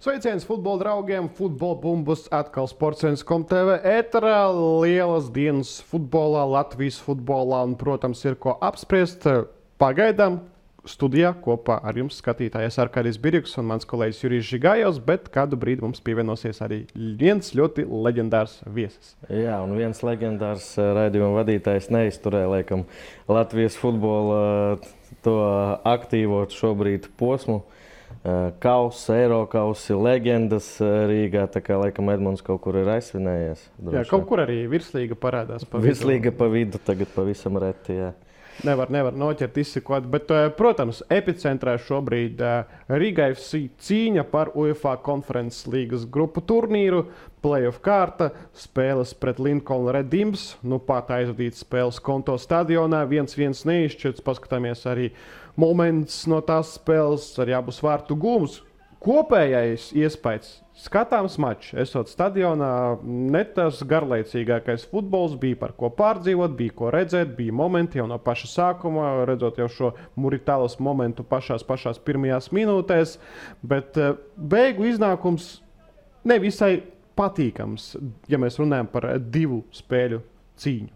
Sveiciens futbola draugiem, futbola bumbas, atkal Sports.com TV ēterā. Lielas dienas futbolā, Latvijas futbolā un, protams, ir ko apspriest. Pagaidām studijā kopā ar jums skatītājs Arkādijs Birjuks un mans kolēģis Jurijs Žigājovs, bet kādu brīdi mums pievienosies arī viens ļoti leģendārs viesis. Jā, un viens leģendārs raidījuma vadītājs neizturēja, laikam, Latvijas futbola to aktīvo šobrīd posmu. Kausi, Eirokausi, leģendas Rīgā, tā kā laikam Edmunds kaut kur ir aizsvinējies. Jā, kaut kur arī virslīga parādās pa vidu. Virslīga pa vidu, tagad pavisam reti, jā. Nevar noķert izsekot, bet, protams, epicentrā šobrīd Riga FC cīņa par UEFA konferences līgas grupu turnīru, playoff kārta, spēles pret Lincoln Red Imps, pat aizvadīts spēles Konto stadionā, 1-1 neizšķirts, paskatāmies arī moments no tās spēles, arī abus vārtu gūmus. Kopējais iespējas skatāms mačs, esot stadionā, ne tas garlaicīgākais futbols, bija par ko pārdzīvot, bija ko redzēt, bija momenti jau no paša sākuma, redzot jau šo Muritālas momentu pašās pirmajās minūtēs, bet beigu iznākums nevisai patīkams, ja mēs runājam par divu spēļu cīņu.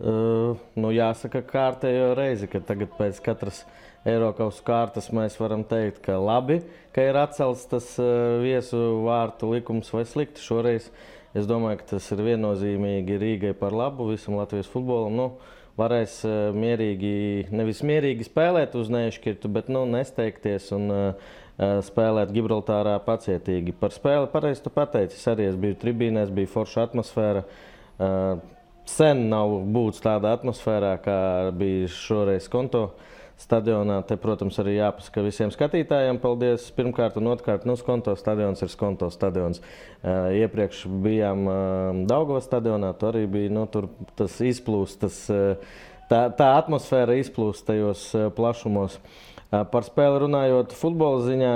Jāsaka kārtējo reizi, ka tagad pēc katras Eirokausu kārtas mēs varam teikt, ka labi, ka ir atcelts tas viesu vārtu likums vai slikti. Šoreiz es domāju, ka tas ir viennozīmīgi Rīgai par labu, visam Latvijas futbolam. Varēs nevis mierīgi spēlēt uz neizšķirtu, bet nesteigties un spēlēt Gibraltārā pacietīgi. Par spēli pareizi tu pateici, es arī biju tribīnēs, bija forša atmosfēra. Sen nav būts tādā atmosfērā, kā bija šoreiz Konto stadionā. Te, protams, arī jāpasaka visiem skatītājiem paldies. Pirmkārt un otrkārt, Konto stadions ir Konto stadions. Iepriekš bijām Daugavas stadionā, tur arī bija, tur tas izplūst, tā atmosfēra izplūst tajos plašumos. Par spēli runājot futbola ziņā,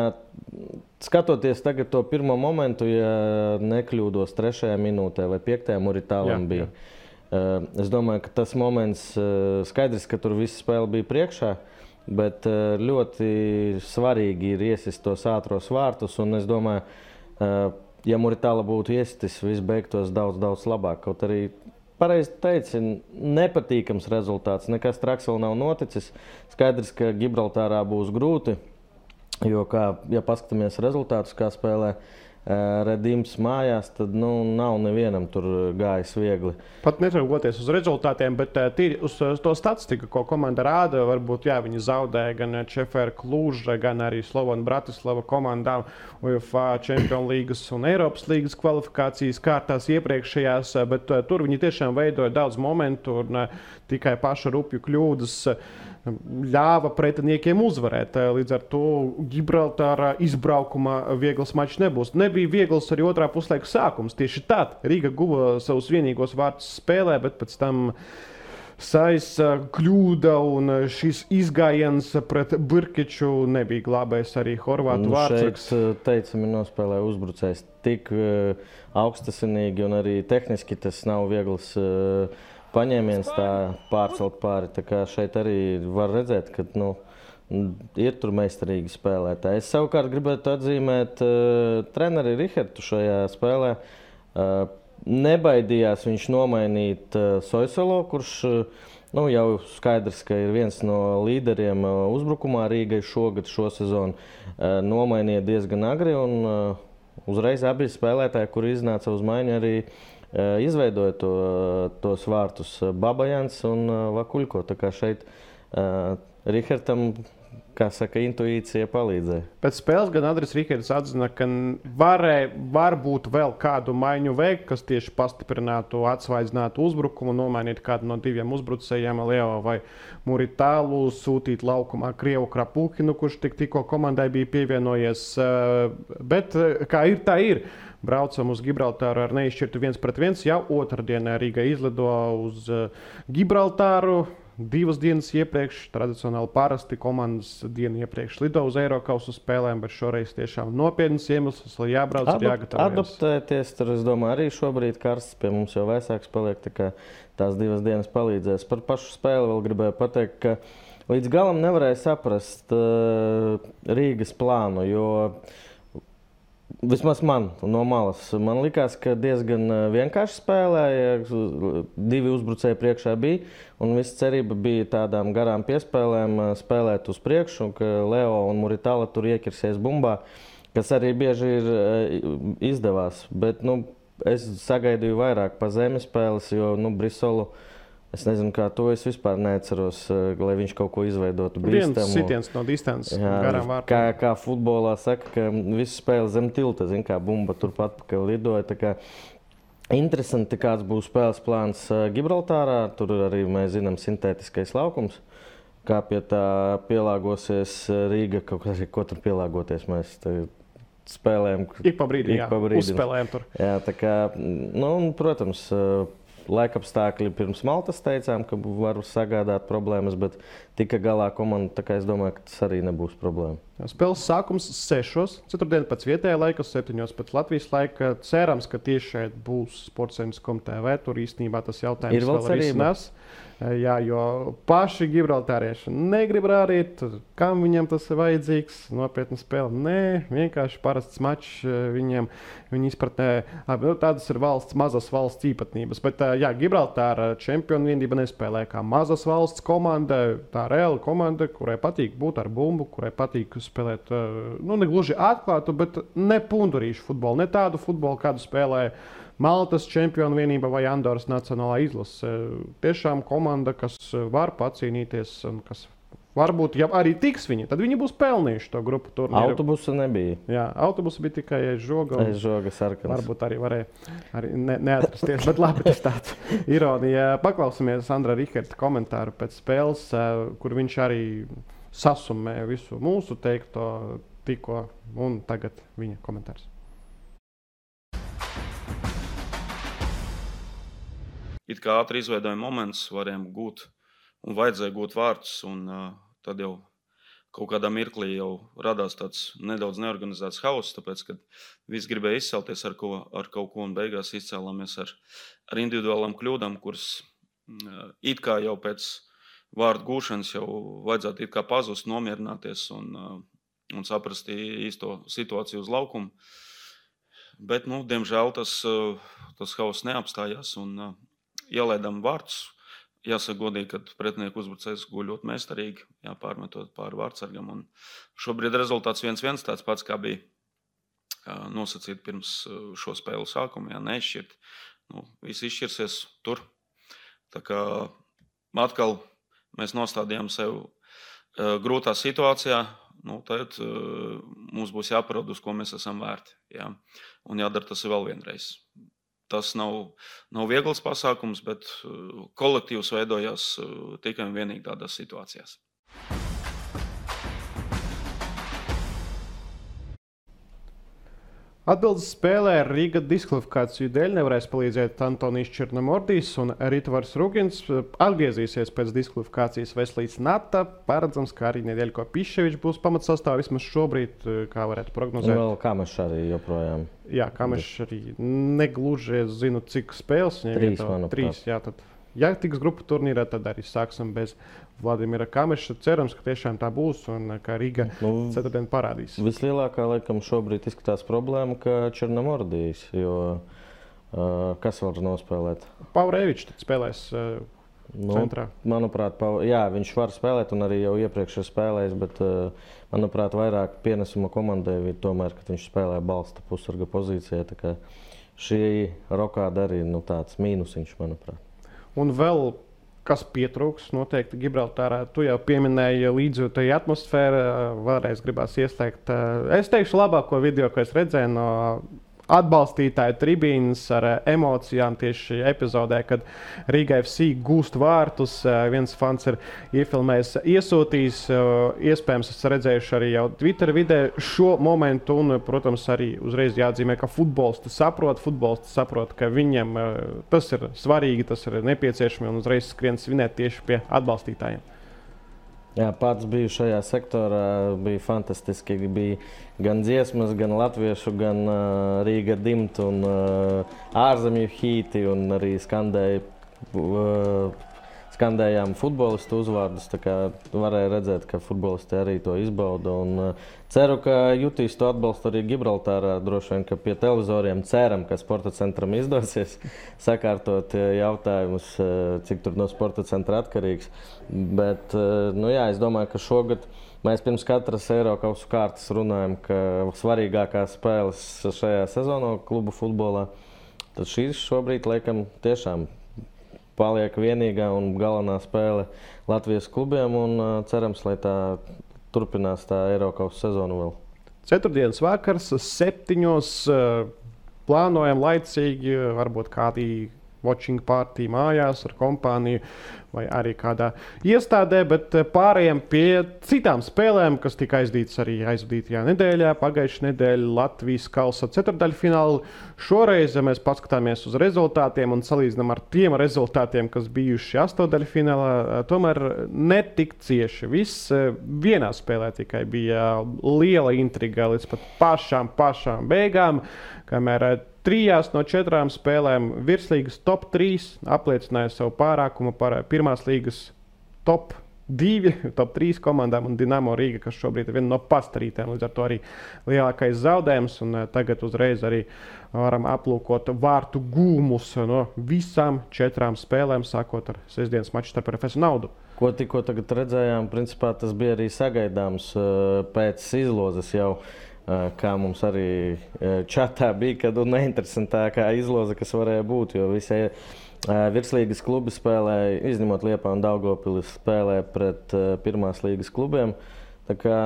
skatoties tagad to pirmo momentu, ja nekļūdos 3. minūtē vai 5. Muritālam bija. Es domāju, ka tas moments skaidrs, ka tur visa spēle bija priekšā, bet ļoti svarīgi ir iesist tos ātros vārtus, un es domāju, ja Muritāla būtu iestis, viss beigtos daudz labāk. Kaut arī pareizi teici, nepatīkams rezultāts, nekas traks vēl nav noticis. Skaidrs, ka Gibraltārā būs grūti, jo, ja paskatāmies rezultātus, kā spēlē Red Imps mājās, tad nav nevienam tur gājis viegli. Pat netraugoties uz rezultātiem, bet tīri uz to statistiku, ko komanda rāda, varbūt viņi zaudēja gan Čefēra Kluža, gan arī Slovana Bratislava komandām UEFA Champions līgas un Eiropas līgas kvalifikācijas kārtās iepriekšējās, bet tur viņi tiešām veidoja daudz momentu un tikai paša rupju kļūdas ļāva pretiniekiem uzvarēt. Līdz ar to Gibraltārā izbraukumā viegls mačs nebūs. Nebija viegls arī otrā puslaika sākums. Tieši tad Riga guva savus vienīgos vārtus spēlē, bet pēc tam Saisa kļūda un šis izgājiens pret Birkiču nebija glābējis arī horvātu vārdsargs. Šeit teicami nospēlēja uzbrucējs tik augstasinīgi un arī tehniski tas nav viegls paņēmiens tā pārcelt pāri. Tā kā šeit arī var redzēt, ka ir tur meistarīgi spēlētāji. Es savukārt gribētu atzīmēt treneri Rihertu šajā spēlē. Nebaidījās viņš nomainīt Soisolo, kurš jau skaidrs, ka ir viens no līderiem uzbrukumā Rīgai šogad, šo sezonu. Nomainīja diezgan agri un uzreiz abi spēlētāji, kuri iznāca uz maiņu, arī izveidoja tos vārtus Babajans un Vakuļko. Tā kā šeit Rihertam, kā saka, intuīcija palīdzēja. Pēc spēles gan Andris Riherts atzina, ka varbūt vēl kādu maiņu veikt, kas tieši pastiprinātu, atsvaidzinātu uzbrukumu, nomainīt kādu no diviem uzbrucējiem, Leo vai Muritālu, sūtīt laukumā Krievu Krapūkinu, kurš tikko komandai bija pievienojies. Bet kā ir, tā ir. Braucam uz Gibraltāru ar neizšķirtu 1-1. Jau otrdienā Rīga izlido uz Gibraltāru. 2 dienas iepriekš, tradicionāli parasti komandas dienu iepriekš lido uz Eirokausu spēlēm, bet šoreiz tiešām nopietnas iemesls, lai jābrauc un jāgatavojas. Adaptēties, tur es domāju, arī šobrīd karsts, pie mums jau vēsāks paliek, tā kā tās 2 dienas palīdzēs. Par pašu spēli vēl gribēju pateikt, ka līdz galam nevarēja saprast Rīgas plānu, jo Vismaz man no malas. Man likās, ka diezgan vienkārši spēlēja. 2 uzbrucēji priekšā bija. Un visa cerība bija tādām garām piespēlēm spēlēt uz priekšu. Ka Leo un Muritala tur iekirsies bumbā, kas arī bieži ir izdevās. Bet es sagaidīju vairāk pa zemes spēles, jo Brisolu, es nezinu, kā to es vispār neatceros, lai viņš kaut ko izveidotu bīstamu. Viens sitiens no distances garām vārtām. Kā futbolā saka, ka visu spēli zem tilta, kā bumba turpat pakaļ lidoja. Tā kā interesanti, kāds būs spēles plāns Gibraltārā. Tur arī mēs zinām sintētiskais laukums. Kā pie tā pielāgosies Rīga, ko tur pielāgoties mēs spēlējam. Ik pa brīdim, uzspēlējam tur. Jā, tā kā, protams, laikapstākļi pirms Maltas teicām, ka var sagādāt problēmas, bet tika galā komanda, tā kā es domāju, ka tas arī nebūs problēma. Spēles sākums 6. Ceturtdien pēc vietējā laika, 7. pēc Latvijas laika. Cerams, ka tieši šeit būs Sportscentrs.com TV. Tur īstenībā tas jautājums ir vēl risinās. Jā, jo paši gibraltārieši negrib rādīt, kam viņam tas ir vajadzīgs. Nopietna spēle. Nē, vienkārši parasts mačs viņiem. Viņi izpratnē, tādas ir mazas valsts īpatnības. Bet Gibraltāra čempionu vienība nespēlē kā mazas valsts komanda. Tā reāla komanda, kurai patīk būt ar bumbu, kurai patīk spēlēt, ne gluži atklātu, bet ne pundurīšu futbolu. Ne tādu futbolu, kādu spēlē Maltas čempionu vienība vai Andoras nacionālā izlase. Tiešām komanda, kas var pacīnīties un kas varbūt, ja arī tiks viņi, tad viņi būs pelnījuši to grupu turnīru. Autobusa nebija. Jā, autobusa bija tikai žoga. Žoga sarkans. Varbūt arī varēja arī neatrasties, bet labi, tas tāds ironija. Paklausamies Andra Riherta komentāru pēc spēles, kur viņš arī sasumē visu mūsu teikto tikko, un tagad viņa komentārs. It kā ātri izveidoja moments, varējām gūt un vajadzēja gūt vārtus, un tad jau kaut kādā mirklī jau radās tāds nedaudz neorganizēts hauss, tāpēc, kad visi gribēja izcelties ar kaut ko, un beigās izcēlāmies ar individuālām kļūdām, kuras it kā jau pēc vārdu gūšanas jau vajadzētu it kā pazust, nomierināties un saprast īsto situāciju uz laukumu. Bet, diemžēl tas hauss neapstājās, un ielaidām vārtus. Jāsaka godīgi, ka pretinieku uzbrucējs guļ ļoti meistarīgi, pārmetot pāri vārtsargam. Un šobrīd rezultāts 1-1 tāds pats, kā bija nosacīt pirms šo spēlu sākumu. Neizšķirt. Viss izšķirsies tur. Tā kā atkal mēs nostādījām sev grūtā situācijā. Tad mums būs jāparāda, uz ko mēs esam vērti. Jā. Un jādara tas vēl vienreiz. Tas nav viegls pasākums, bet kolektīvs veidojās tikai un vienīgi tādās situācijās. Atbildes spēlē Rīga diskvalifikāciju dēļ nevarēs palīdzēt Antonijs Černomordijs un Ritvars Rugins. Atgriezīsies pēc diskvalifikācijas Veslīs Nata. Paredzams, ka arī Nedeļko Piševičs būs pamatsastāvā vismaz šobrīd, kā varētu prognozēt. Vēl Kamešs arī joprojām. Jā, Kamešs arī negluži, es zinu, cik spēles. 3, manuprāt. 3, jā, tad, ja tiks grupu turnīrā, tad arī sāksim bez Vladimira Kameša. Cerams, ka tiešām tā būs un ka Riga ceturtdien parādīs. Vislielākā, laikam, šobrīd izskatās problēma, ka Černomordijs, jo kas var nospēlēt? Paurevičs spēlēs centrā. Manuprāt, viņš var spēlēt un arī jau iepriekš ir spēlējis, bet, manuprāt, vairāk pienesuma komandai ir tomēr, ka viņš spēlē balsta pusarga pozīcijā. Tā kā šī rokāda arī tāds mīnusiņš, manuprāt. Un vēl kas pietrūks noteikti Gibraltārā. Tu jau pieminēji līdzjūtīgu atmosfēru, vēlreiz gribās ieslēgt. Es teikšu labāko video, ko es redzēju no atbalstītāju tribīnas ar emocijām tieši epizodē, kad Riga FC gūst vārtus. Viens fans ir iefilmējis, iesūtījis. Iespējams, es redzējuši arī jau Twitter vidē šo momentu. Un, protams, arī uzreiz jāatzīmē, ka futbolisti saprot, ka viņiem tas ir svarīgi, tas ir nepieciešami un uzreiz skrien svinēt tieši pie atbalstītājiem. Jā, pats biju šajā sektorā, bija fantastiski. Bija gan dziesmas, gan latviešu, gan Rīga dimta un ārzemju hīti, un arī skandēja skandējām futbolistu uzvārdus, tā kā varēja redzēt, ka futbolisti arī to izbauda. Un ceru, ka jutīs to atbalstu arī Gibraltārā. Droši vien, ka pie televizoriem ceram, ka sporta centram izdosies sakārtot jautājumus, cik tur no sporta centra atkarīgs. Bet, es domāju, ka šogad mēs pirms katras Eirokausu kārtas runājam, ka svarīgākās spēles šajā sezonā klubu futbolā. Tad šīs šobrīd, laikam, tiešām paliek vienīgā un galvenā spēle Latvijas klubiem. Un cerams, lai tā turpinās tā Eirokausu sezonu vēl. Ceturtdienas vakars, 7. Plānojam laicīgi, varbūt kādī watching party mājās ar kompāniju vai arī kādā iestādē, bet pārējiem pie citām spēlēm, kas tika aizvadītajā nedēļā. Pagājušajā nedēļā Latvijas kausa ceturtdaļfināla. Šoreiz mēs paskatāmies uz rezultātiem un salīdzinām ar tiem rezultātiem, kas bijuši astoņdaļfinālā. Tomēr netik cieši. Viss vienā spēlē tikai bija liela intriga līdz pat pašām beigām, kamēr 3 no 4 spēlēm virslīgas top 3 apliecināja savu pārākumu par pirmās līgas top 2, top 3 komandām un Dinamo Rīga, kas šobrīd ir viena no pastarītēm, līdz ar to arī lielākais zaudējums. Un tagad uzreiz arī varam aplūkot vārtu gūmus no visām 4 spēlēm, sākot ar sestdienas maču starp RFS un Naudu. Ko tikko tagad redzējām, principā tas bija arī sagaidāms pēc izlozes jau. Kā mums arī čatā bija, kad neinteresantākā izloze, kas varēja būt, jo visi virslīgas klubi spēlēja, izņemot Liepāju un Daugavpili, spēlē pret pirmās līgas klubiem. Tā kā,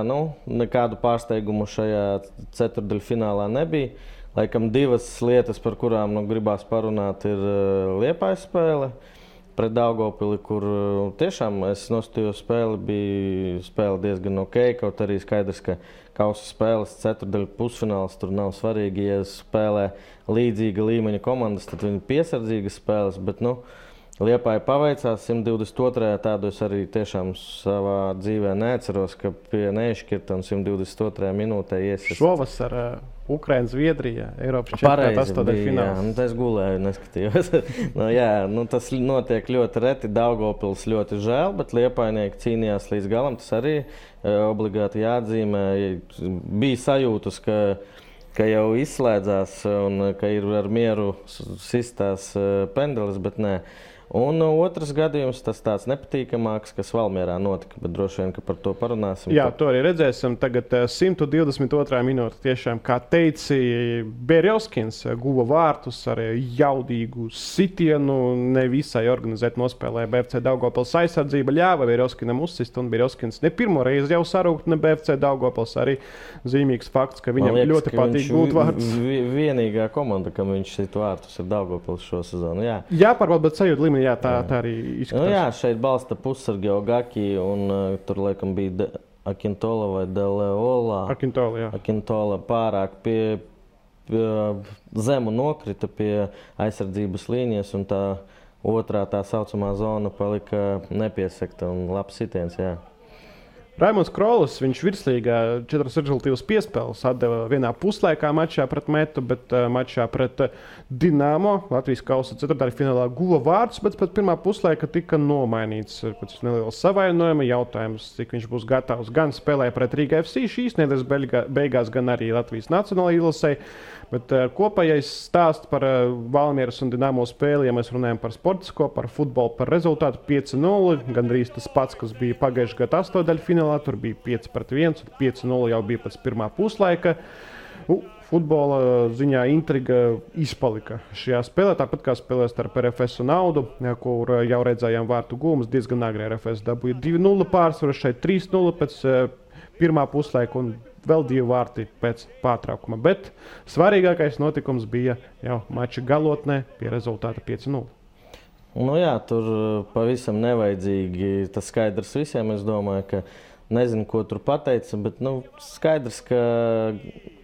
nekādu pārsteigumu šajā ceturtdaļfinālā nebija. Laikam 2 lietas, par kurām gribās parunāt, ir Liepājas spēle pret Daugavpili, kur tiešām es nostājos spēli, bija spēle diezgan ok, kaut arī skaidrs, ka kausa spēles ceturtdaļu pusfināls tur nav svarīgi. Ja spēlē līdzīga līmeņa komandas, tad viņi piesardzīgas spēles, bet Liepāja paveicās 122. Tādu es arī tiešām savā dzīvē neatceros, ka pie nešķirta un 122. minūtē iesies. Šovasar Ukraina, Zviedrija, Eiropas čempionāta astoņdaļfināls. Es gulēju, neskatījos. Tas notiek ļoti reti. Daugavpils ļoti žēl, bet Liepājnieki cīnījās līdz galam. Tas arī obligāti jāatzīmē. Bija sajūtas, ka jau izslēdzās un ka ir ar mieru sistās pendelis, bet nē. Un otrs gadījums, tas tāds nepatīkamāks, kas Valmierā notika, bet droši vien, ka par to parunāsim. Jā, to arī redzēsim. Tagad 122. minūte. Tiešām, kā teici, Berjovskins guva vārtus ar jaudīgu sitienu. Nevisai organizēt nospēlēja BFC Daugavpils aizsardzība. Ļāva Berjovskinam uzsist, un Berjovskins ne pirmo reizi jau sarūkt ne BFC Daugavpils. Arī zīmīgs fakts, ka viņam ļoti patīk gūt vārtus. Vienīgā komanda, kam viņš sit vārtus, ir Daugavpils šo sezonu. Jā, pārbaud, bet sajūt līmenī. Jā, tā arī izskatās. Šeit balsta pussargi Ogaki, un tur laikam bija Akintola vai Deleola. Akintola pārāk pie zemu nokrita pie aizsardzības līnijas, un tā otrā tā saucamā zona palika nepiesegta un labs sitiens, jā. Raimonds Krolis, viņš virslīgā 4 rezultīvas piespēles atdeva vienā puslaikā mačā pret Metu, bet mačā pret Dinamo Latvijas kausa ceturtdaļfinālā guva vārdus, bet pēc pirmā puslaika tika nomainīts pēc neliela savainojuma. Jautājums, cik viņš būs gatavs gan spēlēt pret Rīga FC šīs nedēļas beigās, gan arī Latvijas nacionālajai izlasei. Bet kopējais stāsts par Valmieras un Dinamo spēli, ja mēs runājam par sportisko, par futbolu, par rezultātu 5-0, gandrīz tas pats, kas bija pagājušajā gadā astoņdaļfinālā, tur bija 5-1 un 5-0 jau bija pēc pirmā puslaika. Futbola ziņā intriga izpalika šajā spēlē, tāpat kā spēlē starp RFS un Naudu, kur jau redzējām vārtu gūmus. Diezgan agri RFS dabūja 2-0 pārsvaru, šeit 3-0 pēc pirmā puslaika un vēl 2 vārti pēc pārtraukuma. Bet svarīgākais notikums bija jau mača galotnē pie rezultāta 5-0. Tur pavisam nevajadzīgi. Tas skaidrs visiem. Es domāju, ka nezinu, ko tur pateica, bet skaidrs, ka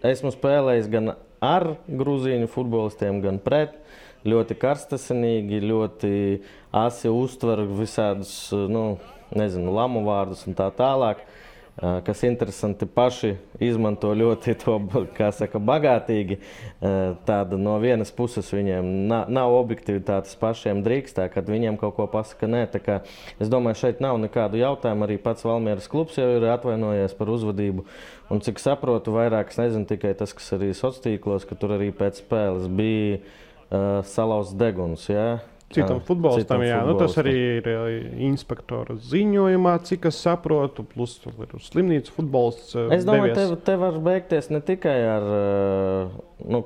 esmu spēlējis gan ar grūzīņu futbolistiem, gan pret. Ļoti karstasinīgi, ļoti asi uztver visādus, lamu vārdus un tā tālāk. kas interesanti, paši izmanto ļoti to, kā saka, bagātīgi. Tāda no vienas puses viņiem nav objektivitātes pašiem drīkstā, kad viņiem kaut ko pasaka nē. Tā kā es domāju, šeit nav nekādu jautājumu. Arī pats Valmieras klubs jau ir atvainojies par uzvedību. Un cik saprotu, vairāk es nezinu tikai tas, kas arī sociālos tīklos, ka tur arī pēc spēles bija salauzts deguns. Ja? Citam futbolistam, jā. Nu, tas arī ir inspektora ziņojumā, cik es saprotu, plus ir slimnīcas futbolists. Es domāju, te var beigties ne tikai ar,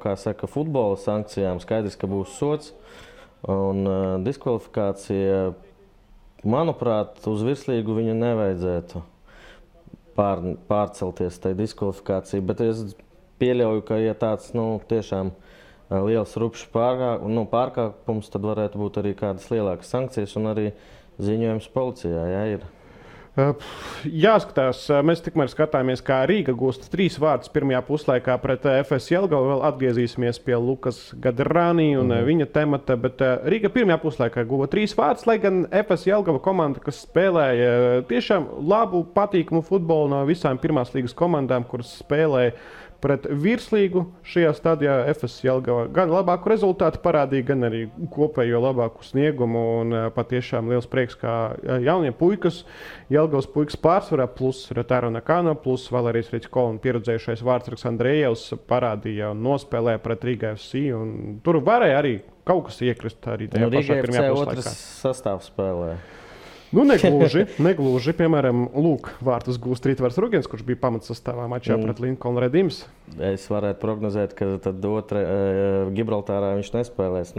kā saka, futbola sankcijām. Skaidrs, ka būs sods un diskvalifikācija. Manuprāt, uz virslīgu viņu nevajadzētu pārcelties tai diskvalifikācijai, bet es pieļauju, ka ja tāds, tiešām liels rupšs pārkāpums, tad varētu būt arī kādas lielākas sankcijas un arī ziņojums policijā, jā, ir. Jāskatās, mēs tikmēr skatāmies, kā Rīga gūst 3 vārdus pirmajā puslaikā pret FS Jelgavu. Vēl atgriezīsimies pie Lukas Gadrani un viņa temata, bet Rīga pirmajā puslaikā guva 3 vārdus, lai gan FS Jelgava komanda, kas spēlēja tiešām labu, patīkamu futbolu no visām pirmās līgas komandām, kuras spēlēja pret virslīgu šajā stadijā. FS Jelgava gan labāku rezultātu parādīja, gan arī kopējo labāku sniegumu. Un patiešām liels prieks, kā jaunie puikas, Jelgavas puikas pārsvarā, plus Rotaro Nakano, plus Valērijas Ričko un pieredzējušais Vārtsargs Andrejevs parādīja un nospēlēja pret Riga FC. Un tur varēja arī kaut kas iekrist arī tajā pašā pirmajā puslaikā. Riga FC otrs sastāvs spēlē. Negluži. Piemēram, vārtus gūst Rītvars Rugins, kurš bija pamatsastāvā mačā pret Lincoln Redims. Es varētu prognozēt, ka tad Gibraltārā viņš nespēlēs.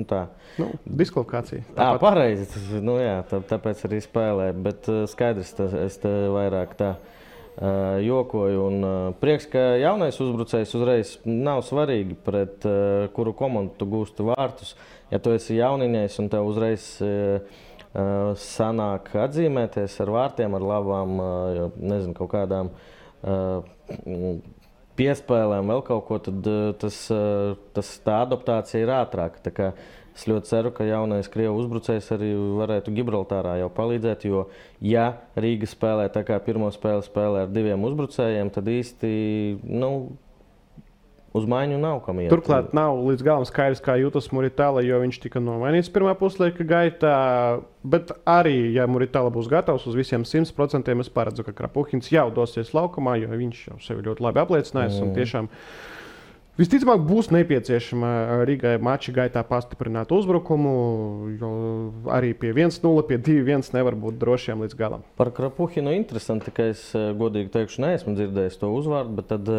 Diskvalifikācija. Pareizi. Tāpēc arī spēlē. Bet skaidrs, es te vairāk tā jokoju. Un prieks, ka jaunais uzbrucējs uzreiz nav svarīgi, pret kuru komandu tu gūsti vārtus. Ja tu esi jauniņais un tev uzreiz sanāk atzīmēties ar vārtiem, ar labām, kaut kādām piespēlēm, vēl kaut ko, tad tā adaptācija ir ātrāka. Tā kā es ļoti ceru, ka jaunais Krievu uzbrucējs arī varētu Gibraltārā jau palīdzēt, jo ja Rīga spēlē tā kā pirmo spēli spēlē ar 2 uzbrucējiem, tad īsti, uz maiņu nav kam iet. Turklāt nav līdz galam skaidrs, kā jūtas Muritāla, jo viņš tika nomainīts pirmā puslaika gaitā. Bet arī, ja Muritāla būs gatavs uz visiem 100%, es paredzu, ka Krapuhins jau dosies laukumā, jo viņš jau sevi ļoti labi apliecinājis. Un tiešām visticamāk būs nepieciešama Rīgai mača gaitā pastiprināt uzbrukumu, jo arī pie 1-0, pie 2-1 nevar būt drošiem līdz galam. Par Krapuhinu interesanti, ka es godīgi teikšu, neesmu dzirdējis to uzvārdu, bet tad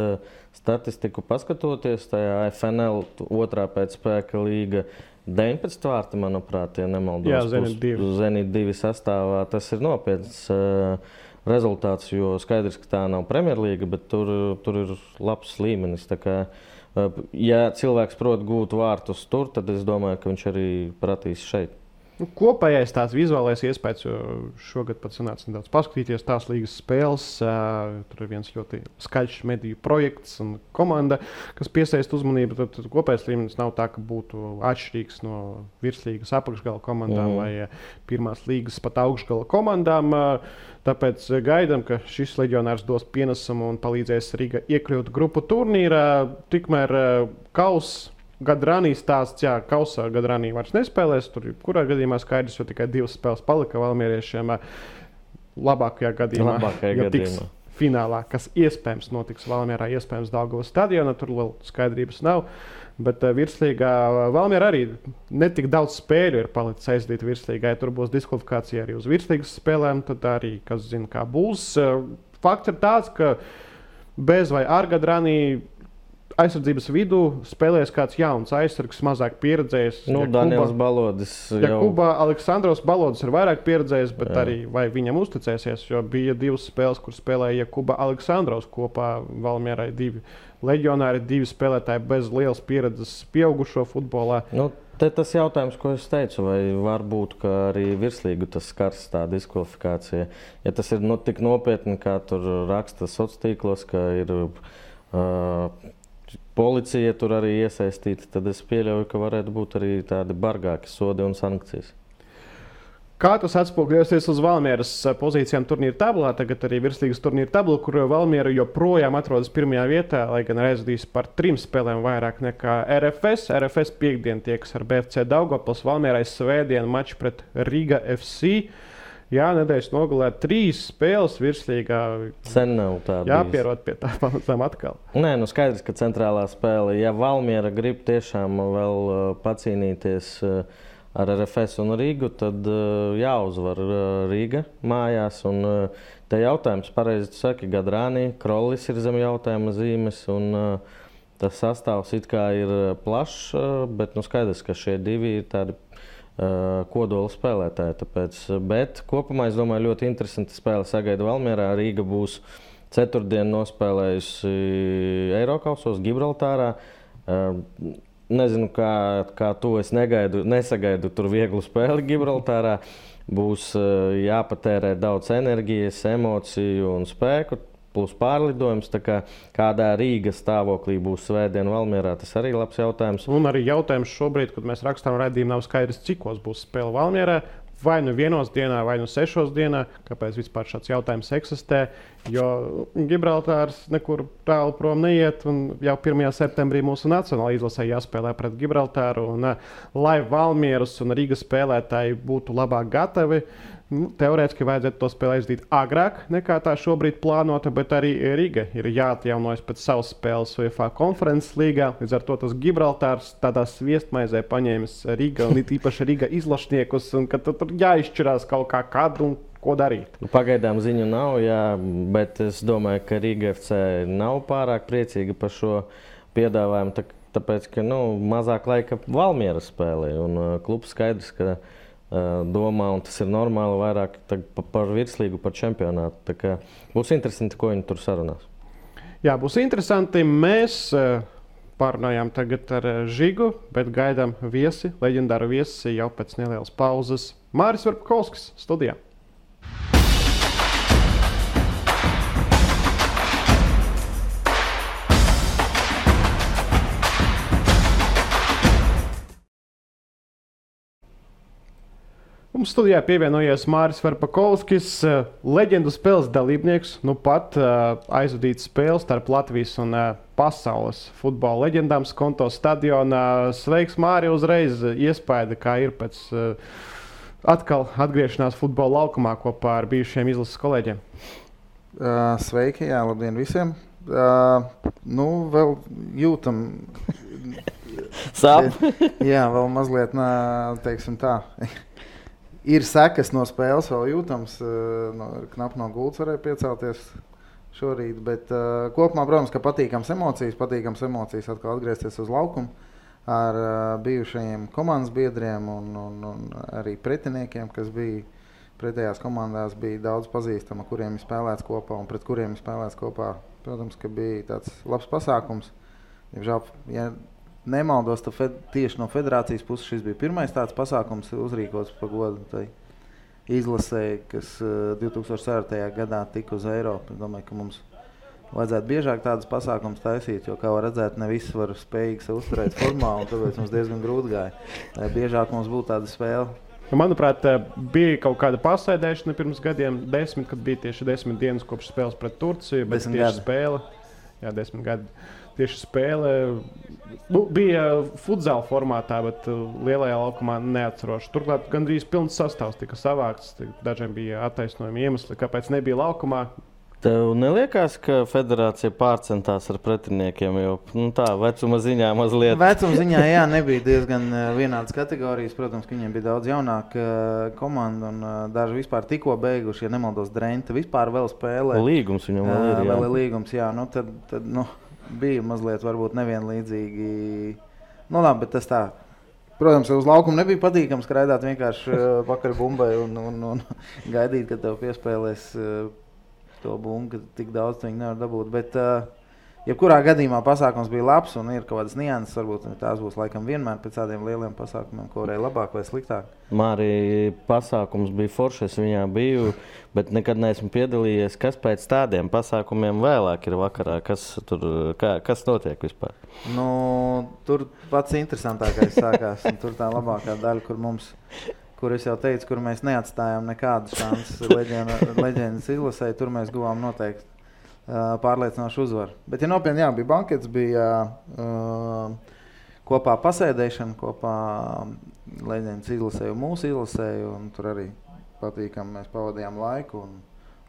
statistiku paskatoties, tajā FNL otrā pēcspēka līga 19 vārti, manuprāt, ja nemaldos. Jā, Zenit 2 sastāvā. Tas ir nopietns rezultāts, jo skaidrs, ka tā nav Premjerlīga, bet tur ir labs līmenis. Tā kā, ja cilvēks prot gūt vārtus tur, tad es domāju, ka viņš arī pratīs šeit. Kopējais tāds vizuālais iespējas, jo šogad pat sanāca nedaudz paskatīties tās līgas spēles. Tur ir viens ļoti skaļš mediju projekts un komanda, kas piesaista uzmanību. Tad kopējais līmenis nav tā, ka būtu atšķirīgs no virslīgas apakšgala komandām vai pirmās līgas pat augšgala komandām. Tāpēc gaidām, ka šis leģionārs dos pienesumu un palīdzēs Riga iekļūt grupu turnīrā. Tikmēr Kauss Gadrani stāsts, kausā Gadrani vairs nespēlēs. Tur kurā gadījumā skaidrs, jo tikai 2 spēles palika valmieriešiem. Labākajā gadījumā, tiks finālā, kas iespējams notiks Valmierā, iespējams Daugavas stadionā. Tur vēl skaidrības nav. Bet virslīgā Valmiera arī netik daudz spēļu ir palicis aizdīt virslīgai. Tur būs diskvalifikācija arī uz virslīgas spēlēm. Tad arī, kas zina, kā būs. Fakts ir tāds, ka bez vai ar Gadrani aizsardzības vidū spēlēs kāds jauns aizsargs, mazāk pieredzējis. Daniels Balodis. Jakubā Aleksandrovs Balodis ir vairāk pieredzējis, bet arī vai viņam uzticēsies, jo bija 2 spēles, kur spēlēja Jakubā Aleksandrovs kopā Valmierai 2 leģionāri, 2 spēlētāji bez lielas pieredzes pieaugušo futbolā. Te tas jautājums, ko es teicu, vai var būt, ka arī virslīgu tas skars tā diskvalifikācija. Ja tas ir tik nopietni, kā tur raksta sociālos tīklos, ka ir policija tur arī iesaistīta, tad es pieļauju, ka varētu būt arī tādi bargāki sodi un sankcijas. Kā tas atspūgļosies uz Valmieras pozīcijām turnīra tablā, tagad arī virslīgas turnīra tabla, kur Valmiera joprojām atrodas pirmajā vietā, lai gan aizvadīs par 3 spēlēm vairāk nekā RFS. RFS piekdien tiekas ar BFC Daugavpils, Valmierai svētdien mačs pret Riga FC. Jā, nedēļas nogalē 3 spēles virslīgā. Sen nav tā bijis. Jāpierod pie tā pamazām atkal. Nē, nu skaidrs, ka centrālā spēle, ja Valmiera grib tiešām vēl pacīnīties ar RFS un Rīgu, tad jāuzvar Rīga mājās. Un te jautājums, pareizi tu saki, Gadrāni, Krollis ir zem jautājuma zīmes, un tas sastāvs it kā ir plašs, bet nu skaidrs, ka šie 2 ir tādi kodola spēlētāji. Tāpēc, bet kopumā, es domāju, ļoti interesanti spēle sagaida Valmierā. Rīga būs ceturtdien nospēlējusi Eirokausos Gibraltārā. Nezinu, kā tu, es nesagaidu tur vieglu spēli Gibraltārā. Būs jāpatērē daudz enerģijas, emociju un spēku, plus pārlidojums. Tā kā kādā Rīgas stāvoklī būs svētdien Valmierā, tas arī labs jautājums. Un arī jautājums šobrīd, kad mēs rakstām raidījumu, nav skaidrs, cikos būs spēle Valmierā. Vai nu 1 dienā, vai nu 6 dienā, kāpēc vispār šāds jautājums eksistē, jo Gibraltārs nekur tālu prom neiet, un jau 1. septembrī mūsu nacionālajā izlasē jāspēlē pret Gibraltāru, un lai Valmieras un Rīgas spēlētāji būtu labāk gatavi, teorētiski vajadzētu to spēli aizdīt agrāk nekā tā šobrīd plānota, bet arī Riga ir jāatjaunojas pēc savas spēles UEFA konferences līgā. Līdz ar to tas Gibraltārs tādā sviestmaizē paņēmis Riga un it īpaši Riga izlašniekus, un ka tur jāizšķirās kaut kā kad un ko darīt. Pagaidām ziņu nav, jā, bet es domāju, ka Riga FC nav pārāk priecīga par šo piedāvājumu, tāpēc, ka mazāk laika Valmieras spēlē, un klubs skaidrs, ka domā, un tas ir normāli, vairāk par virslīgu, par čempionātu. Tā kā būs interesanti, ko viņi tur sarunās. Jā, būs interesanti. Mēs pārunājām tagad ar Žigu, bet gaidām viesi, leģendāru viesi jau pēc nelielas pauzes. Māris Varpakovskis studijā. Mums studijā pievienojies Māris Varpakovskis, leģendu spēles dalībnieks. Nu pat aizvadīts spēles starp Latvijas un pasaules futbola leģendām Skonto stadionā. Sveiks, Māri, uzreiz iespaida, kā ir pēc atkal atgriešanās futbola laukumā kopā ar bijušiem izlases kolēģiem. Sveiki, jā, labdien visiem. Vēl jūtam... Sāp? Jā, vēl mazliet, teiksim tā... Ir sekas no spēles, vēl jūtams, knap no gultas varēja piecelties šorīt, bet kopumā, protams, ka patīkams emocijas atkal atgriezties uz laukumu ar bijušajiem komandas biedriem un arī pretiniekiem, kas bija pretējās komandās, bija daudz pazīstama, kuriem ir spēlēts kopā un pret kuriem ir spēlēts kopā. Protams, ka bija tāds labs pasākums. Diemžēl, ja nemaldos, tieši no federācijas puses šis bija pirmais tāds pasākums uzrīkots pa godu tai izlasē, kas 2004. gadā tika uz Eiropu. Es domāju, ka mums vajadzētu biežāk tādas pasākums taisīt, jo, kā var redzēt, ne visi var spējīgi sev uzturēt formā, un tāpēc mums diezgan grūti gāja. Biežāk mums būtu tāda spēle. Manuprāt, bija kaut kāda pasēdēšana pirms gadiem, 10, kad bija tieši 10 dienas kopš spēles pret Turciju, bet tieši spēle, jā, 10 gadi. Tieši spēle bija futzāla formātā, bet lielajā laukumā neatceroši. Turklāt gandrīz pilns sastāvs tika savākts. Dažiem bija attaisnojumi iemesli, kāpēc nebija laukumā. Tev neliekās, ka federācija pārcentās ar pretiniekiem, jo tā vecuma ziņā mazliet? Vecuma ziņā, jā, nebija diezgan vienādas kategorijas. Protams, ka viņiem bija daudz jaunāka komanda un daži vispār tikko beiguši, ja nemaldos, Drenta vispār vēl spēlē. Līgums viņam vēl ir, jā. Vēl ir līgums, jā. Tad bija mazliet varbūt nevienlīdzīgi. Labi, bet tas tā. Protams, uz laukumu nebija patīkams skraidāt vienkārši pakaļ bumbai un gaidīt, kad tev piespēlēs to bumbu, ka tik daudz viņi nevar dabūt. Bet jebkurā gadījumā pasākums bija labs un ir kaut kādas nianses. Varbūt tās būs laikam vienmēr pēc tādiem lieliem pasākumiem, ko varēja labāk vai sliktāk. Māri, pasākums bija foršs, es viņā biju, bet nekad neesmu piedalījies. Kas pēc tādiem pasākumiem vēlāk ir vakarā? Kas notiek vispār? Tur pats interesantākais sākās. Tur tā labākā daļa, kur kur es jau teicu, kur mēs neatstājām nekādu šansu leģendas izlasē, tur mēs guvām noteikti pārliecinošu uzvaru. Bet, ja nopietni, bija bankets, bija kopā pasēdēšana, kopā leģendas izlasēju, mūsu izlasēju, un tur arī patīkami mēs pavadījām laiku,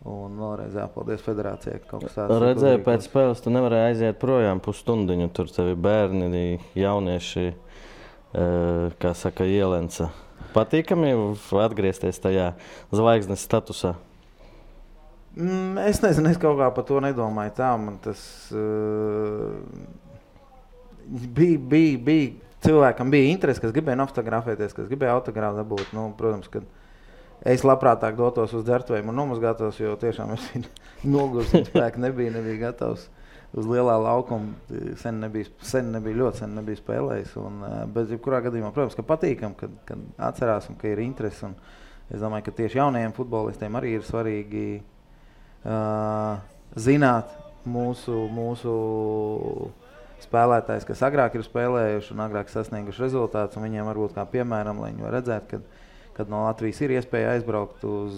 un vēlreiz jāpaldies federācijai, ka kaut kas tāds. Redzēju, pēc spēles tu nevarēji aiziet projām pusstundiņu, tur tevi bērni, jaunieši, kā saka, ielenca. Patīkami atgriezties tajā zvaigznes statusā? Es nezinu, es kaut kā par to nedomāju tā, man tas bija cilvēkam bija interesi, kas gribēja autografēties, kas gribēja autogrāfu dabūt. Nu, protams, ka es labprātāk dotos uz dzertuvēm un nomazgātos, jo tiešām es nogurs un spēki nebija gatavs uz lielā laukuma. Sen nebija spēlējis. Bet jebkurā gadījumā, protams, ka patīkam, kad atcerās un ka ir interesi. Un es domāju, ka tieši jaunajiem futbolistiem arī ir svarīgi zināt mūsu spēlētājs, kas agrāk ir spēlējuši un agrāk sasnieguši rezultātus, un viņiem varbūt kā piemēram, lai viņi var redzēt, kad no Latvijas ir iespēja aizbraukt uz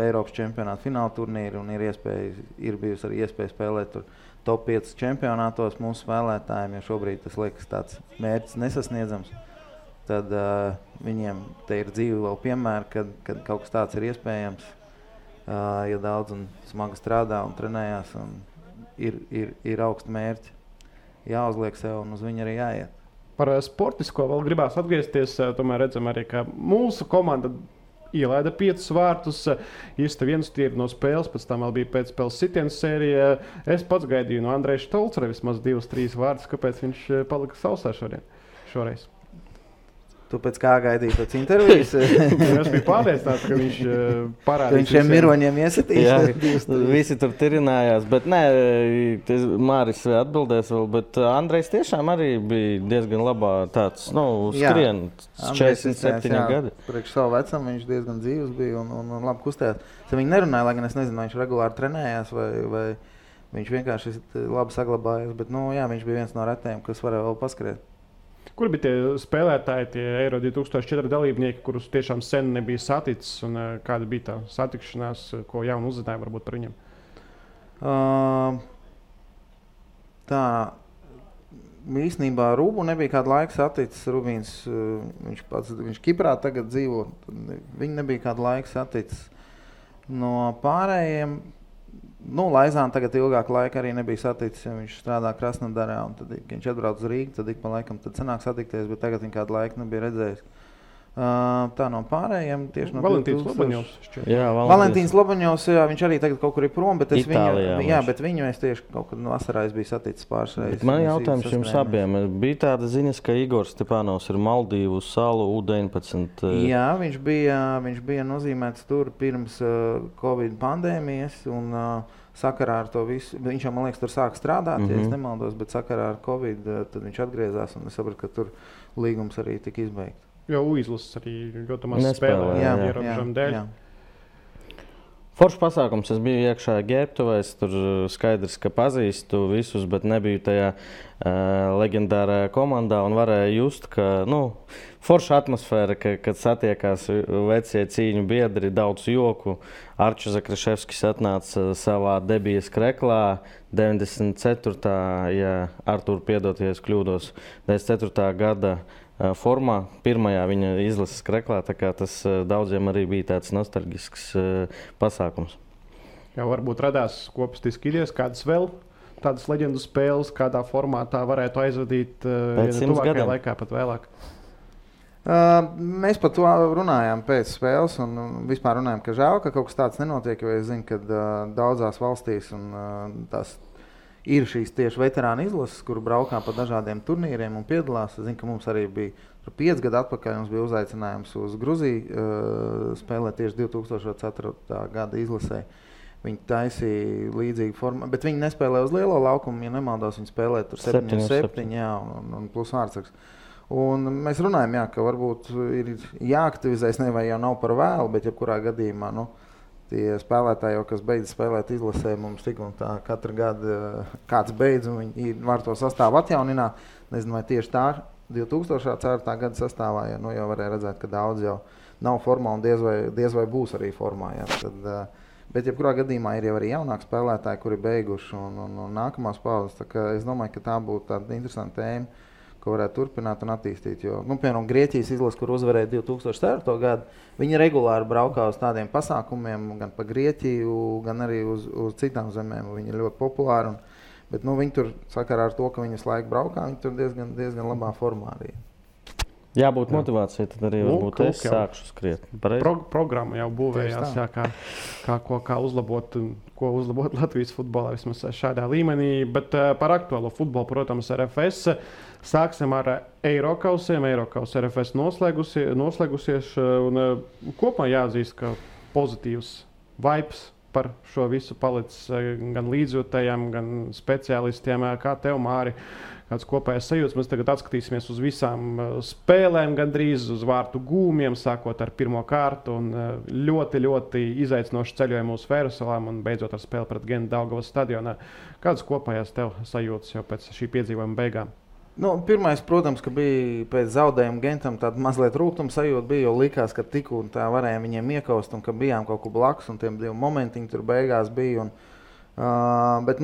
Eiropas čempionātu fināla turnīru un ir bijusi arī iespēja spēlēt tur top 5 čempionātos mūsu spēlētājiem, jo šobrīd tas liekas tāds mērķis nesasniedzams. Tad viņiem te ir dzīve vēl piemēri, kad kaut kas tāds ir iespējams. Ja daudz un smagi strādā un trenējās un ir augsti mērķi, jāuzliek sev un uz viņu arī jāiet. Par sportisko vēl gribās atgriezties, tomēr redzam arī, ka mūsu komanda ielaida 5 vārtus, īsta viens tīri no spēles, pēc tam vēl bija pēcspēles sitienas sērija. Es pats gaidīju no Andreja Štolcera vismaz 2-3 vārdus, kāpēc viņš palika sausā šoreiz. Tu pēc kā gaidīji pēc intervijas? Es biju pārliecināts, ka viņš parādīs. Viņš šiem miroņiem iesitīs. Jā, visi tur tirinājās, bet nē, Māris atbildēs vēl, bet Andrejs tiešām arī bija diezgan labā tāds, skrien, 47 gadi. Priekš savu vecumu viņš diezgan dzīvs bija un labi kustējās. Es viņu nerunāju, lai gan es nezinu, vai viņš regulāri trenējās vai viņš vienkārši labi saglabājās, bet viņš bija viens no retajiem, kas varēja vēl paskriet. Kur bija tie spēlētāji, tie Eiro 2004 dalībnieki, kurus tiešām sen nebija saticis, un kāda bija tā satikšanās, ko jaunu uzzināja varbūt par viņiem? Tā īstenībā Rūbu nebija kādu laiku saticis. Rubīns, viņš Kiprā tagad dzīvo, viņi nebija kādu laiku saticis. No pārējiem, Laizāna tagad ilgāku laiku arī nebija saticis, jo viņš strādā Krasnodarā, un tad, kad viņš atbrauc uz Rīgu, tad ik pa laikam tad sanāk satikties, bet tagad viņa kādu laiku nebija redzējis. Tā no pārējiem tieši no Valentīns Lobaņovs. Valentīns Lobaņovs, viņš arī tagad kaut kur ir prom, bet viņu es tieši kaut kad vasarā biju saticis pāris reizes. Man jautājums jums abiem. Bija tāda ziņas, ka Igors Stepānovs ir Maldīvu salu U19. Jā, viņš bija nozīmēts tur pirms Covid pandēmijas un sakarā ar to visu. Viņš jau, man liekas, tur sāk strādāt, ja es nemaldos, bet sakarā ar Covid tad viņš atgriezās un es sapratu, ka tur līgums arī tika izbeigts. Jo izlases arī ļoti maz spēlē ierobežojumu dēļ. Foršs pasākums. Es biju iekšā ģērbtuvēs, tur skaidrs, ka pazīstu visus, bet nebiju tajā leģendārajā komandā un varēju just, ka forša atmosfēra, kad satiekās vecie cīņu biedri, daudz joku. Arču Zakraševskis atnāca savā debijas kreklā 94. ja Artur piedot, ja es kļūdos, 94. gada formā, pirmajā viņa izlases kreklā, tā kā tas daudziem arī bija tāds nostalģisks pasākums. Jā, varbūt radās kopistiski idejas, kādas vēl tādas leģendu spēles, kādā formātā varētu aizvadīt tuvākajā laikā, pat vēlāk. Mēs par to runājām pēc spēles un vispār runājām, ka žēl, ka kaut kas tāds nenotiek, jo es zinu, ka daudzās valstīs un tās ir šīs tieši veterāna izlases, kur braukā pa dažādiem turnīriem un piedalās. Es zinu, ka mums arī bija 5 gadu atpakaļ, mums bija uzaicinājums uz Gruziju spēlēt tieši 2004. gada izlasē. Viņi taisīja līdzīgu formu, bet viņi nespēlēja uz lielo laukumu, ja nemaldos, viņi spēlēja tur 7-7, un plus vārdsargs. Un mēs runājam, ka varbūt ir jāaktivizēs, vai jau nav par vēlu, bet jebkurā gadījumā, tie spēlētāji, kas beidz spēlēt izlasē, mums tik un tā katru gadu kāds beidz, un viņi var to sastāvu atjaunināt. Nezinu, vai tieši tā 2004. gada sastāvā, jau varēja redzēt, ka daudz jau nav formā un diez vai būs arī formā. Ja. Tad, bet jebkurā gadījumā ir jau arī jaunāki spēlētāji, kuri beiguši un nākamās paudzes. Es domāju, ka tā būtu tāda interesanta tēma, ko varētu turpināt un attīstīt. Jo, piemēram, Grieķijas izlase, kur uzvarēja 2004. gadu, viņi regulāri braukā uz tādiem pasākumiem, gan pa Grieķiju, gan arī uz citām zemēm. Viņi ir ļoti populāri. Bet viņi tur sakarā ar to, ka viņi visu laiku braukā, viņi tur diezgan labā formā arī. Jābūt motivācijai, tad arī varbūt es sākšu skriet. Programma jau būvējās, kā uzlabot Latvijas futbolā vismaz šādā līmenī. Bet par aktuālo futbolu, protams, RFS. Sāksim ar Eirokausiem. Eirokaus RFS noslēgusies. Un kopumā jāatzīst, ka pozitīvs vibes par šo visu palicis gan līdzjūtējiem, gan speciālistiem. Kā tev, Māri, kāds kopējais sajūts? Mēs tagad atskatīsimies uz visām spēlēm, gandrīz uz vārtu gūmiem, sākot ar pirmo kārtu. Un ļoti, ļoti izaicinoši ceļojumu uz Fērusalām un beidzot ar spēli pret Gentu Daugavas stadionā. Kādas kopējās tev sajūtas jau pēc šī piedzīvojuma beigām? Pirmais, protams, ka bija pēc zaudējuma Gentam tāda mazliet rūgtuma sajūta bija, jo likās, ka tik un tā varējām viņiem iekaust un ka bijām kaut kur blakus un tiem divi momentiņi tur beigās bija. Bet,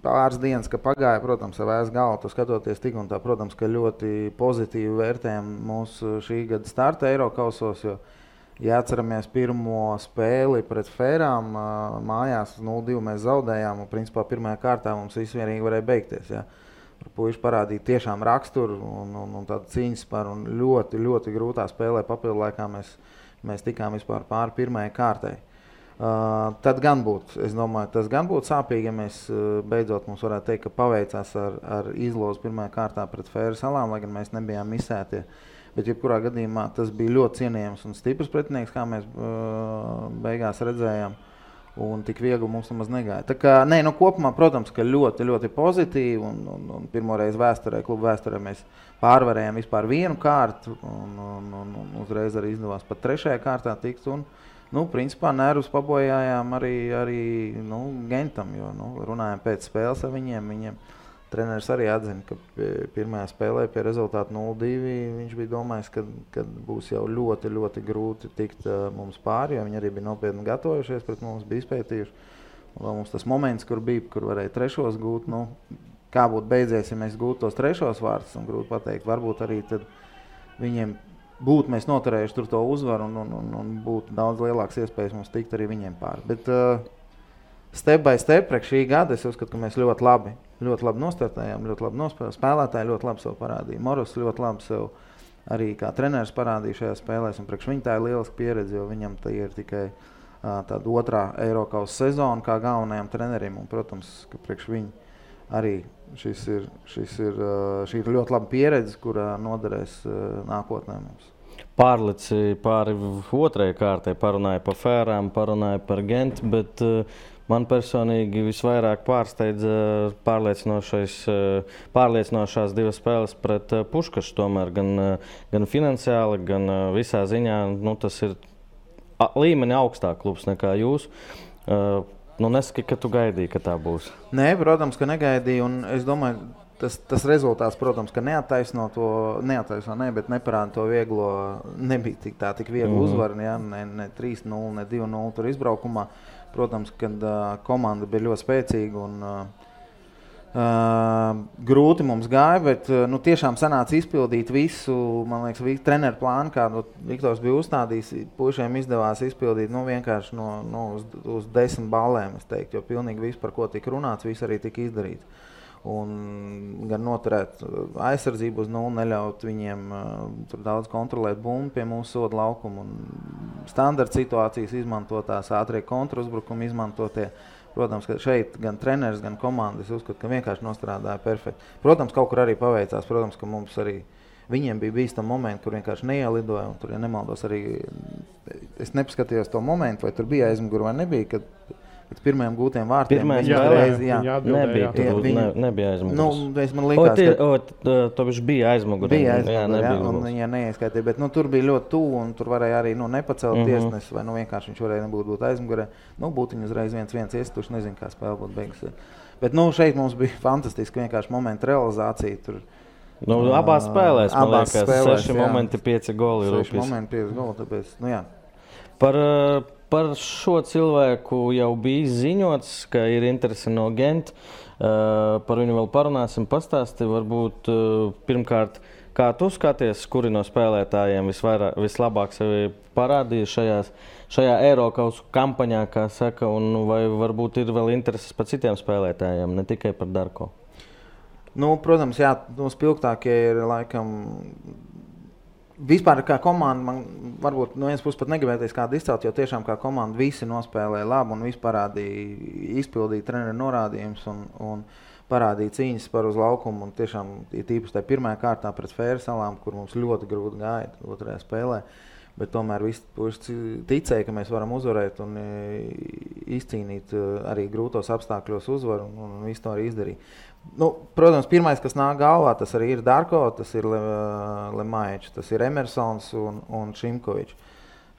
pāris dienas, ka pagāja, protams, ar vēs galvu, tu skatoties tik un tā, protams, ka ļoti pozitīvi vērtējam mūsu šī gada starta Eirokausos, jo, ja atceramies pirmo spēli pret Fērām, mājās 0-2 mēs zaudējām un, principā, pirmajā kārtā mums visvienīgi varēja beigties, ja. Puiši parādīja tiešām raksturu un tādu cīņas par un ļoti, ļoti grūtā spēlē papildu laikā mēs tikām vispār pāri pirmajai kārtai. Tad gan būtu, es domāju, tas gan būtu sāpīgi, ja mēs beidzot mums varētu teikt, ka paveicās ar izlozi pirmajā kārtā pret Fēru salām, lai gan mēs nebijām misētie. Bet jebkurā gadījumā tas bija ļoti cienījams un stiprs pretinieks, kā mēs beigās redzējām. Un tik viegli mums nemaz negāja. Tā kā, kopumā, protams, ka ļoti, ļoti pozitīvi un pirmoreiz klubu vēsturē mēs pārvarējām vispār vienu kārtu un uzreiz arī izdevās pat trešajā kārtā tikt un, principā nervus pabojājām arī Gentam, jo, runājām pēc spēles ar viņiem. Treneris arī atzina, ka pirmajā spēlē pie rezultātu 0-2 viņš bija domājis, ka būs jau ļoti, ļoti grūti tikt mums pāri, jo viņi arī bija nopietni gatavojušies pret mums, bija izpētījuši. Un vēl mums tas moments, kur varēja trešos gūt, kā būtu beidzies, ja mēs gūtu tos trešos vārtus, un grūti pateikt, varbūt arī tad viņiem būtu mēs noturējuši tur to uzvaru un būtu daudz lielāks iespējas mums tikt arī viņiem pāri. Bet step by step, priekš šī gada, es uzskatu, ka mēs ļoti labi nostartējām, ļoti labi nospēlējām. Spēlētāji ļoti labi sev parādīja. Moros ļoti labi sev arī kā treneris parādīja šajā spēlēs, un priekš viņa tā ir lieliska pieredze, jo viņam tā ir tikai tāda otrā Eirokaus sezona kā galvenajam trenerim, un, protams, ka priekš viņa arī šī ir ļoti laba pieredze, kurā noderēs nākotnē mums. Pārlici pāri otrajai kārtai, parunāja par Fērām, parunāja par Gentu, bet man personīgi visvairāk pārsteidza pārliecinošās divas spēles pret Puškašu, tomēr gan finansiāli, gan visā ziņā. Tas ir līmeni augstāk klubs nekā jūs. Nesaki, ka tu gaidīji, ka tā būs. Nē, protams, ka negaidīju, un es domāju, tas rezultāts, protams, ka bet neparāda to vieglo, nebija tik viegli uzvaru, ja, ne 3-0, ne 2-0 tur izbraukumā. Protams, kad komanda bija ļoti spēcīga un grūti mums gāja, bet tiešām sanāca izpildīt visu, man liekas, treneru plānu, kādu Viktors bija uzstādījis. Puišiem izdevās izpildīt vienkārši uz 10 ballēm, es teiktu, jo pilnīgi viss, par ko tika runāts, viss arī tika izdarīts. Un gan noturēt aizsardzību uz 0, neļaut viņiem tur daudz kontrolēt bumbu pie mūsu soda laukuma un standarta situācijas izmantotās, ātrie kontrauzbrukumi izmantotie. Protams, ka šeit gan treneris, gan komanda, es uzskatu, ka vienkārši nostrādāja perfekti. Protams, kaut kur arī paveicās, protams, ka mums arī viņiem bija bīstami momenti, kur vienkārši neielidoja, un tur, ja nemaldos, arī es nepaskatījos to momentu, vai tur bija aizmuguri vai nebija, kad pēc pirmajiem gūtiem vārtiem. Nebija aizmugures. Man likās, to viņš bija aizmugures. Bija aizmugures, un viņa neieskaitīja, bet tur bija ļoti tuvu, un tur varēja arī nepacelt tiesnesi, vai vienkārši viņš varēja būt aizmugurē. Būtu viņa uzreiz 1-1 iestuši, nezinu, kā spēle būtu beigusies. Bet šeit mums bija fantastiski vienkārši momenta realizācija. Tur Abās spēlēs, man Abās liekas, spēlēs, 6 momenti, 5 goli. 6 momenti, 5 goli, tāpēc, jā. Par šo cilvēku jau bija ziņots, ka ir interese no Gent. Par viņu vēl parunāsim, pastāsti. Varbūt pirmkārt, kā tu skaties, kuri no spēlētājiem vislabāk sevi parādīja šajā Eirokausu kampaņā, kā saka, un vai varbūt ir vēl intereses par citiem spēlētājiem, ne tikai par Darko? Protams, jā, spilgtākie ir laikam. Vispār kā komanda, man varbūt no vienas puses pat negribēties kādu izcelt, jo tiešām kā komanda visi nospēlēja labi un visi parādīja, izpildīja treneru norādījumus un parādīja cīņas par uz laukumu. Un tiešām tīpaši tajā pirmajā kārtā pret Fēru salām, kur mums ļoti grūti gāja otrajā spēlē. Bet tomēr visi ticēja, ka mēs varam uzvarēt un izcīnīt arī grūtos apstākļos uzvaru un visu to arī izdarīja. Protams, pirmais, kas nāk galvā, tas arī ir Darko, tas ir Lemaičs, tas ir Emersons un Šimkovičs.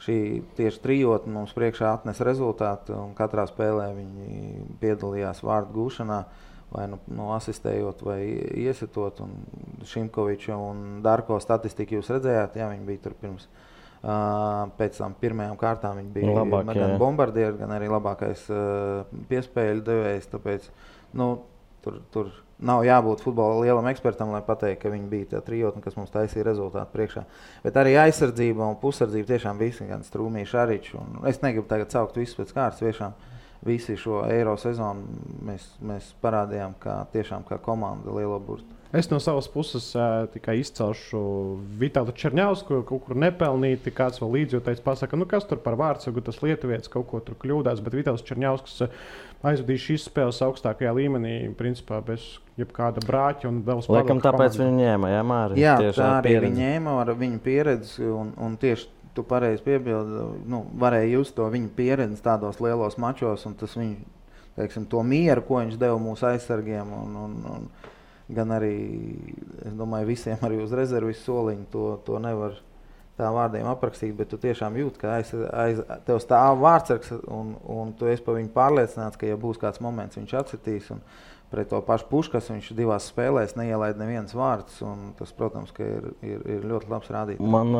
Šī tieši trijotne mums priekšā atnes rezultātu, un katrā spēlē viņi piedalījās vārdu gūšanā, vai asistējot vai iesitot. Un Šimkoviča un Darko statistiku jūs redzējāt, jā, viņi bija tur pirms. Pēc tam pirmajām kārtām viņi bija gan bombardieri, gan arī labākais piespēļu devējs, tāpēc, tur nav jābūt futbola lielam ekspertam, lai pateikt, ka viņi bija tā trijotne, kas mums taisīja rezultātu priekšā. Bet arī aizsardzība un pusardzība tiešām visi, gan Strūmī, Šaričs. Es negribu tagad saukt visus pēc kārtas, tiešām visi šo Eiro sezonu mēs parādījām tiešām kā komanda lielo burtu. Es no savas puses tikai izcelšu Vitālu Čerņausku, kaut kur nepelnīti, kāds vēl līdzjūtējs pasaka, kas tur par vārdsargu, tas lietuvietis kaut ko tur kļūdās, bet Vitāls Čerņausks aizvadīja šīs spēles augstākajā līmenī, principā bez jebkāda brāķa un vēl spēlēja. Laikam tāpēc viņi ņēma, jā, Māri? Jā, tā arī viņi ņēma ar viņu pieredzi un tieši tu pareizi piebildi, varēja just to viņa pieredzi tādos lielos mačos un tas viņu, teiksim, to mieru, ko viņš deva mūsu aizsargiem un gan arī, es domāju, visiem arī uz rezervis soliņu to nevar tā vārdiem aprakstīt, bet tu tiešām jūti, ka tev stāv vārdsargs un tu esi par viņu pārliecināts, ka ja būs kāds moments, viņš atsitīs un pret to pašu Puškas viņš 2 spēlēs neielaid nevienas vārds un tas, protams, ka ir ļoti labs rādītājs. Man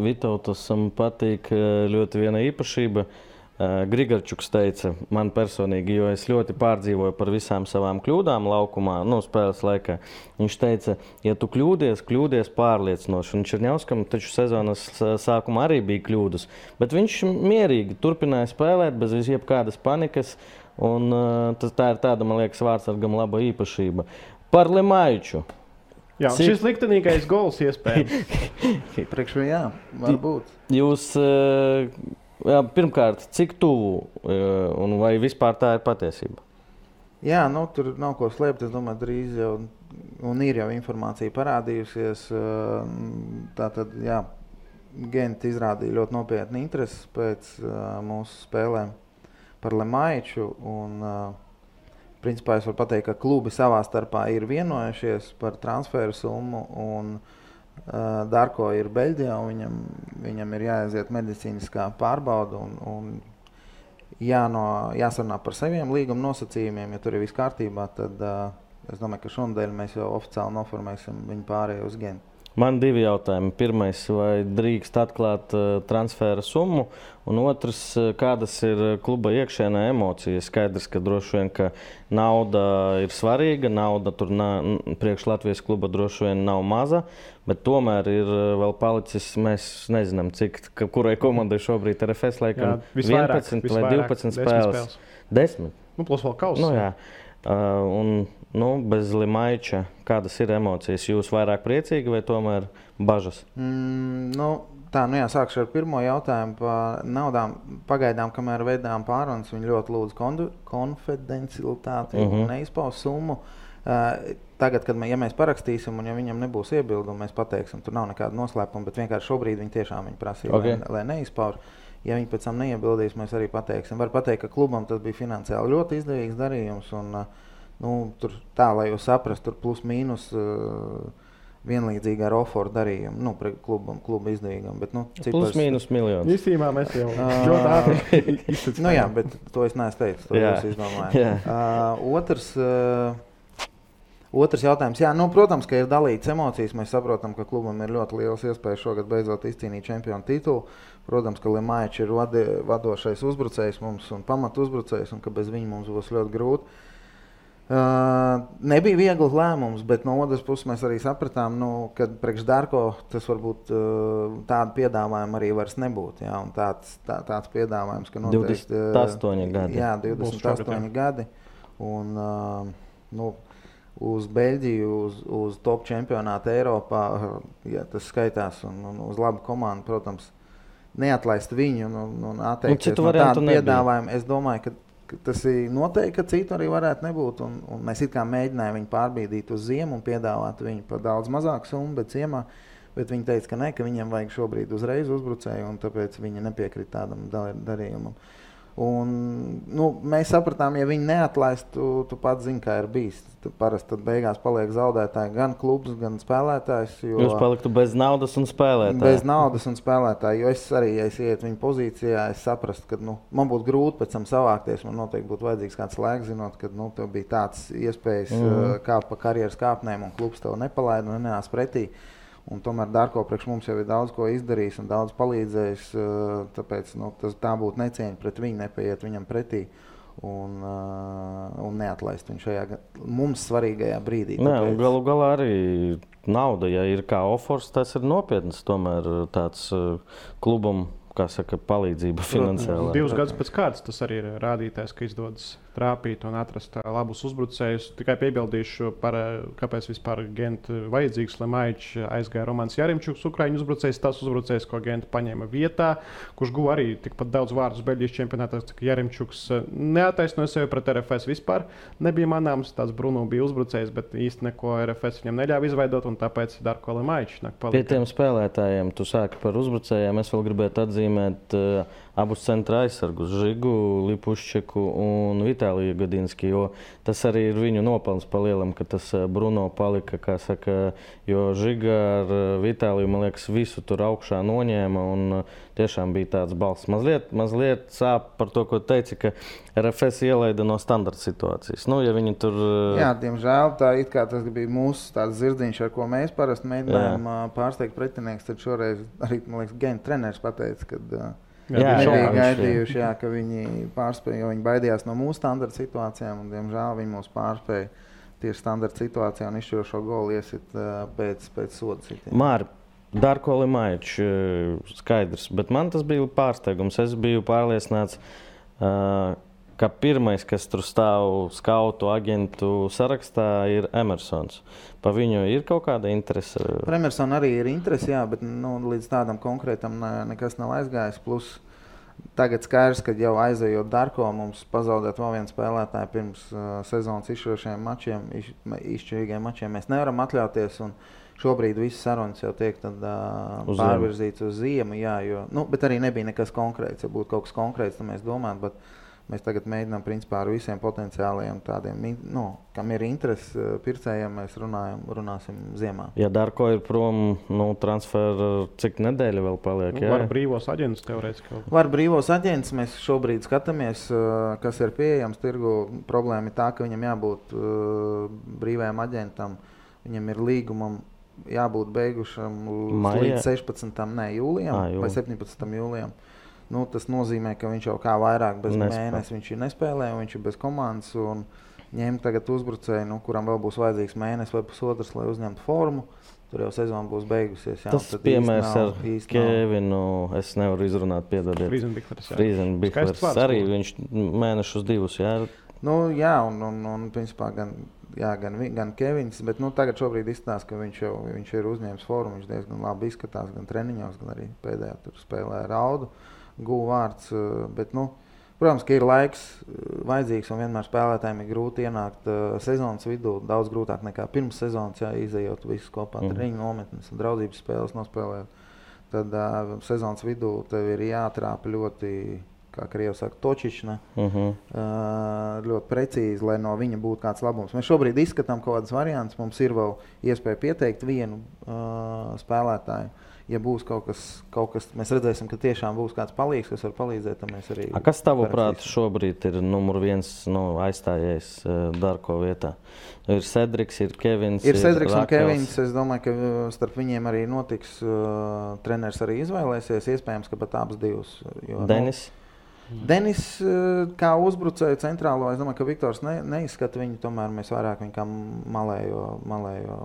Vitautas patīk ļoti viena īpašība. Grigarčuks teica man personīgi, jo es ļoti pārdzīvoju par visām savām kļūdām laukumā, spēles laikā. Viņš teica, ja tu kļūdies pārliecinoši. Un Čerņauskam taču sezonas sākumā arī bija kļūdas, bet viņš mierīgi turpināja spēlēt bez jebkādas panikas. Un tā ir tāda, man liekas, vārdsargam laba īpašība. Par Lemaiču. Jā, šis liktenīgais gols iespējams. Priekš viņu, jā, varbūt. Jūs... pirmkārt, cik tuvu un vai vispār tā ir patiesība? Jā, tur nav ko slēpt. Es domāju, drīz jau un ir jau informācija parādījusies. Tātad, jā, Genti izrādīja ļoti nopietni interesi pēc mūsu spēlēm par Lemaiču. Un, principā, es varu pateikt, ka klubi savā starpā ir vienojušies par transferu summu un Darko ir Beļģijā, un viņam ir jāaiziet medicīniskā pārbauda un jāsarunā par saviem līguma nosacījumiem. Ja tur ir viss kārtībā, tad es domāju, ka šonadēļ mēs jau oficiāli noformēsim viņu pārējo uz Gentu. Man 2 jautājumi. Pirmais, vai drīkst atklāt transfera summu? Un otrs, kādas ir kluba iekšēnē emocijas? Skaidrs, ka droši vien, ka nauda ir svarīga, nauda tur priekš Latvijas kluba droši vien nav maza, bet tomēr ir vēl palicis, mēs nezinām, kurai komandai šobrīd ir RFS laikam 11 vai 12 spēles. 10? Plus vēl kausa. Jā. Bez Lemaiča, kādas ir emocijas? Jūs vairāk priecīgi vai tomēr bažas? Sākšu ar pirmo jautājumu par naudām. Pagaidām, kamēr veidām pārunas, viņi ļoti lūdz konfidencialitāti un neizpaus summu. Tagad, kad mēs parakstīsim un ja viņam nebūs iebildumi, mēs pateiksim, tur nav nekāda noslēpuma, bet vienkārši šobrīd viņi tiešām prasīja, lai neizpauž. Ja viņi pēc tam neiebildīs, mēs arī pateiksim. Var pateikt, ka klubam tas bija finansiāli ļoti izdevīgs darījums un tur tā, lai jūs saprastu, tur plus mīnus vienlīdzīgi ar Oforu darījumu, kluba izdevīgam. Bet, plus mīnus miljonus. Īstībā mēs jau ļoti ātri izsacījām. Jā, bet to es neesmu teicis, to jūs izdomājat. Otrs, Otrs jautājums, jā, protams, ka ir dalīts emocijas. Mēs saprotam, ka klubam ir ļoti liels iespējas šogad beidzot izcīnīt čempionu titulu. Protams, ka Lemaičs ir vadošais uzbrucējs mums un pamatu uzbrucējs, un ka bez viņa mums būs ļoti grūti. Nebija viegls lēmums, bet no otras puses mēs arī sapratām, ka priekš Darko tas varbūt tādu piedāvājumu arī vairs nebūtu. Jā, un tāds piedāvājums, ka noteikti 28 gadi. Jā, 28 gadi. Un, uz Beļģiju, uz top čempionātu Eiropā, ja tas skaitās, un uz labu komandu, protams, neatlaist viņu un atteikties no tādu piedāvājumu. Es domāju, ka tas ir noteikti, ka citu arī varētu nebūt. Un mēs it kā mēģinājām viņu pārbīdīt uz ziemu un piedāvāt viņu par daudz mazāku summu, bet ciemā. Bet viņi teica, ka ne, ka viņiem vajag šobrīd uzreiz uzbrucēju, un tāpēc viņi nepiekrita tādam darījumam. Un, mēs sapratām, ja viņi neatlaist, tu pats zini, kā ir bijis. Parasti tad beigās paliek zaudētāji gan klubs, gan spēlētājs. Jūs paliktu bez naudas un spēlētāji. Bez naudas un spēlētāji, jo es arī, ja es ietu viņu pozīcijā, es saprastu, ka man būtu grūti pēc tam savākties. Man noteikti būtu vajadzīgs kāds laiks, zinot, ka tev bija tāds iespējas kāpt pa karjeras kāpnēm, un klubs tev nepalaida un nenāc pretī. Un tomēr Darko priekš mums jau ir daudz ko izdarījis un daudz palīdzējis, tāpēc tā būtu necieņa pret viņu, nepaiet viņam pretī un neatlaist viņu šajā mums svarīgajā brīdī. Galu galā arī nauda, ja ir kā offers, tas ir nopietns tomēr tāds klubam, kā saka, palīdzība finansiālā. 2 gadus pēc kārtas tas arī ir rādītājs, ka izdodas trāpīt un atrast labus uzbrucējus. Tikai piebildīšu par, kāpēc vispār Genta vajadzīgs. Lemaičs aizgāja Romans Jarimčuks, Ukraiņu uzbrucējs, tas uzbrucējs, ko Genta paņēma vietā, kurš guva arī tikpat daudz vārdus Beļģijas čempionātā. Jarimčuks neataisnoja sevi pret RFS vispār. Nebija manāms, tāds Bruno bija uzbrucējs, bet īsti neko RFS viņam neļāva izveidot, un tāpēc Darko Lemaičs nāk palika. Pie tiem spēlētājiem, tu sāki par uzbrucējiem, es vēl gribētu atzīmēt abus centra aizsargus, Žigu, Lipuščeku un Vitāliju Gadinski, jo tas arī ir viņu nopelns palielam, ka tas Bruno palika, kā saka, jo Žiga ar Vitāliju, man liekas, visu tur augšā noņēma un tiešām bija tāds balss. Mazliet sāp par to, ko teici, ka RFS ielaida no standarta situācijas. Ja viņi tur... Jā, diemžēl tā it kā tas bija mūsu tāds zirdziņš, ar ko mēs parasti mēģinājām pārsteigt pretinieks, tad šoreiz arī, man liekas, Genta treneris pateica, kad nebija gaidījuši, ka viņi pārspēja, jo viņi baidījās no mūsu standarta situācijām, un, diemžēl, viņi mūs pārspēja tieši standarta situācijā un izšķirošo golu iesit pēc soda sitiena. Māri, Darko Lemaičs skaidrs, bet man tas bija pārsteigums. Es biju pārliecināts, ka pirmais, kas tur stāv skautu agentu sarakstā, ir Emersons. Pa viņu ir kaut kāda interese? Par Emersonu arī ir interese, jā, bet līdz tādam konkrētam nekas nav aizgājis. Plus tagad skaidrs, ka jau aizejot Darko, mums pazaudēt vēl vienu spēlētāju pirms sezonas izšķirošajiem mačiem, izšķirīgiem mačiem mēs nevaram atļauties. Un šobrīd visas sarunas jau tiek pārvirzīts uz ziemu, jā, bet arī nebija nekas konkrēts. Ja būtu kaut kas konkrēts, tad mēs domātu, bet mēs tagad mēģinām principā ar visiem potenciālajiem tādiem, kam ir interesi pircējiem, mēs runāsim ziemā. Ja Darko ir prom, transferu, cik nedēļa vēl paliek? Var brīvos aģentus teorētiski. Var brīvos aģentus, mēs šobrīd skatāmies, kas ir pieejams tirgu. Problēma ir tā, ka viņam jābūt brīvajam aģentam, viņam ir līgumam jābūt beigušam līdz 16. jūlijam vai 17. jūlijam. Tas nozīmē, ka viņš jau kā vairāk bez mēnesi viņš ir nespēlē, viņš ir bez komandas un ņem tagad uzbrucēju, kuram vēl būs vajadzīgs mēnesis vai pusotrs, lai uzņemtu formu. Tur jau sezona būs beigusies. Jā, tas piemērs ar Kevinu, es nevaru izrunāt, piedodiet. Friezenbiklers arī viņš mēnešus 2, jā? Jā, un principā gan Kevins, bet tagad šobrīd izstāsta, ka viņš ir uzņēmis formu, viņš diezgan labi izskatās gan treniņos, gan arī pēdējā tur spēlē Raudu. Guva vārds, bet, protams, ka ir laiks vajadzīgs un vienmēr spēlētājiem ir grūti ienākt sezonas vidū, daudz grūtāk nekā pirms sezonas, izejot visus kopā treniņu nometnes un draudzības spēles nospēlējot. Tad sezonas vidū tev ir jātrāpa ļoti, kā Krievi saka, točišana, ļoti precīzi, lai no viņa būtu kāds labums. Mēs šobrīd izskatām kaut kādas variantus, mums ir vēl iespēja pieteikt vienu spēlētāju. ja būs kaut kas, mēs redzēsim, ka tiešām būs kāds palīgs, kas var palīdzēt, tad mēs arī... Kas tavuprāt šobrīd ir numur 1 aizstājējs Darko vietā? Ir Cedriks, ir Kevins, ir Cedriks un Rakels. Kevins. Es domāju, ka starp viņiem arī notiks treneris arī izvēlēsies, iespējams, ka pat abas divas. Jo, Denis kā uzbrucēju centrālo, es domāju, ka Viktors neizskata viņu, tomēr mēs vairāk viņu kā malējo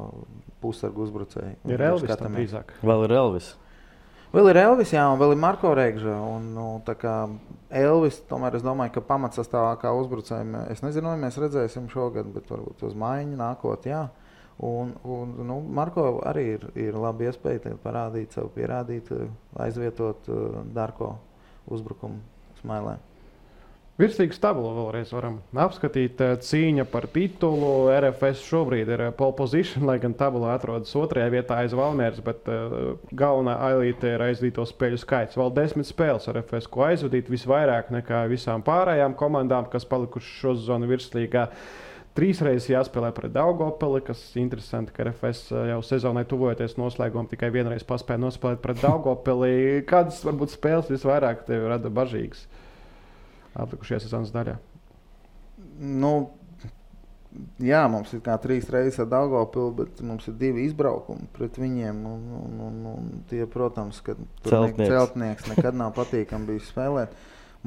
pusargu uzbrucēju. Ir Elvis tam drīzāk. Vēl ir Elvis. Vēl ir Elvis, jā, un vēl ir Marko Regža. Un, tā kā Elvis, tomēr es domāju, ka pamatsastāvā kā uzbrucējiem, es nezinu, vai mēs redzēsim šogad, bet varbūt uz maiņu nākot, jā. Un Marko arī ir labi iespēja parādīt sev, pierādīt, aizvietot Darko uzbrukumu Smailē. Virslīgas tabulu vēlreiz varam apskatīt. Cīņa par titulu. RFS šobrīd ir pole position, lai gan tabulā atrodas 2. vietā aiz Valmieras, bet galvenā ailīte ir aizvadīto spēļu skaits. Vēl 10 spēles RFS, ko aizvadīt visvairāk nekā visām pārējām komandām, kas palikuši šo sezonu virslīgā. 3 reizes jāspēlē pret Daugavpili, kas interesanti, ka RFS jau sezonai tuvojoties noslēgumam tikai vienreiz paspēja nospēlēt pret Daugavpili. Kādas varbūt spēles visvairāk tevi rada bažīgas atlikušajā sezonas daļā? Jā, mums ir kā 3 reizes ar Daugavpili, bet mums ir 2 izbraukumi pret viņiem. Un tie, protams, ka celtnieks nekad nav patīkami bijis spēlēt.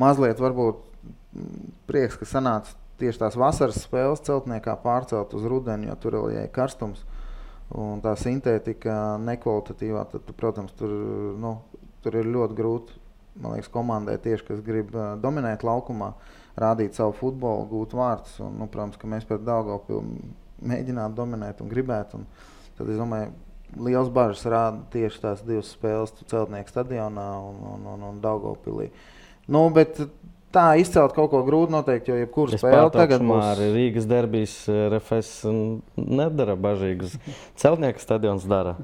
Mazliet varbūt prieks, ka sanāca tieši tās vasaras spēles celtniekā pārcelt uz rudeni, jo tur vēl ir karstums. Un tā sintētika nekvalitatīvā, tad, protams, tur ir ļoti grūti, man liekas, komandai tieši, kas grib dominēt laukumā, rādīt savu futbolu, gūt vārtus. Un, protams, ka mēs pret Daugavpili mēģināt dominēt un gribēt. Un tad, es domāju, liels bažas rāda tieši tās 2 spēles celtnieku stadionā un Daugavpilī. Bet tā izcelt kaut ko grūti noteikti, jo jebkuru spēli tagad būs... Rīgas derbijas RFS nedara bažīgus. Celtnieku stadions dara.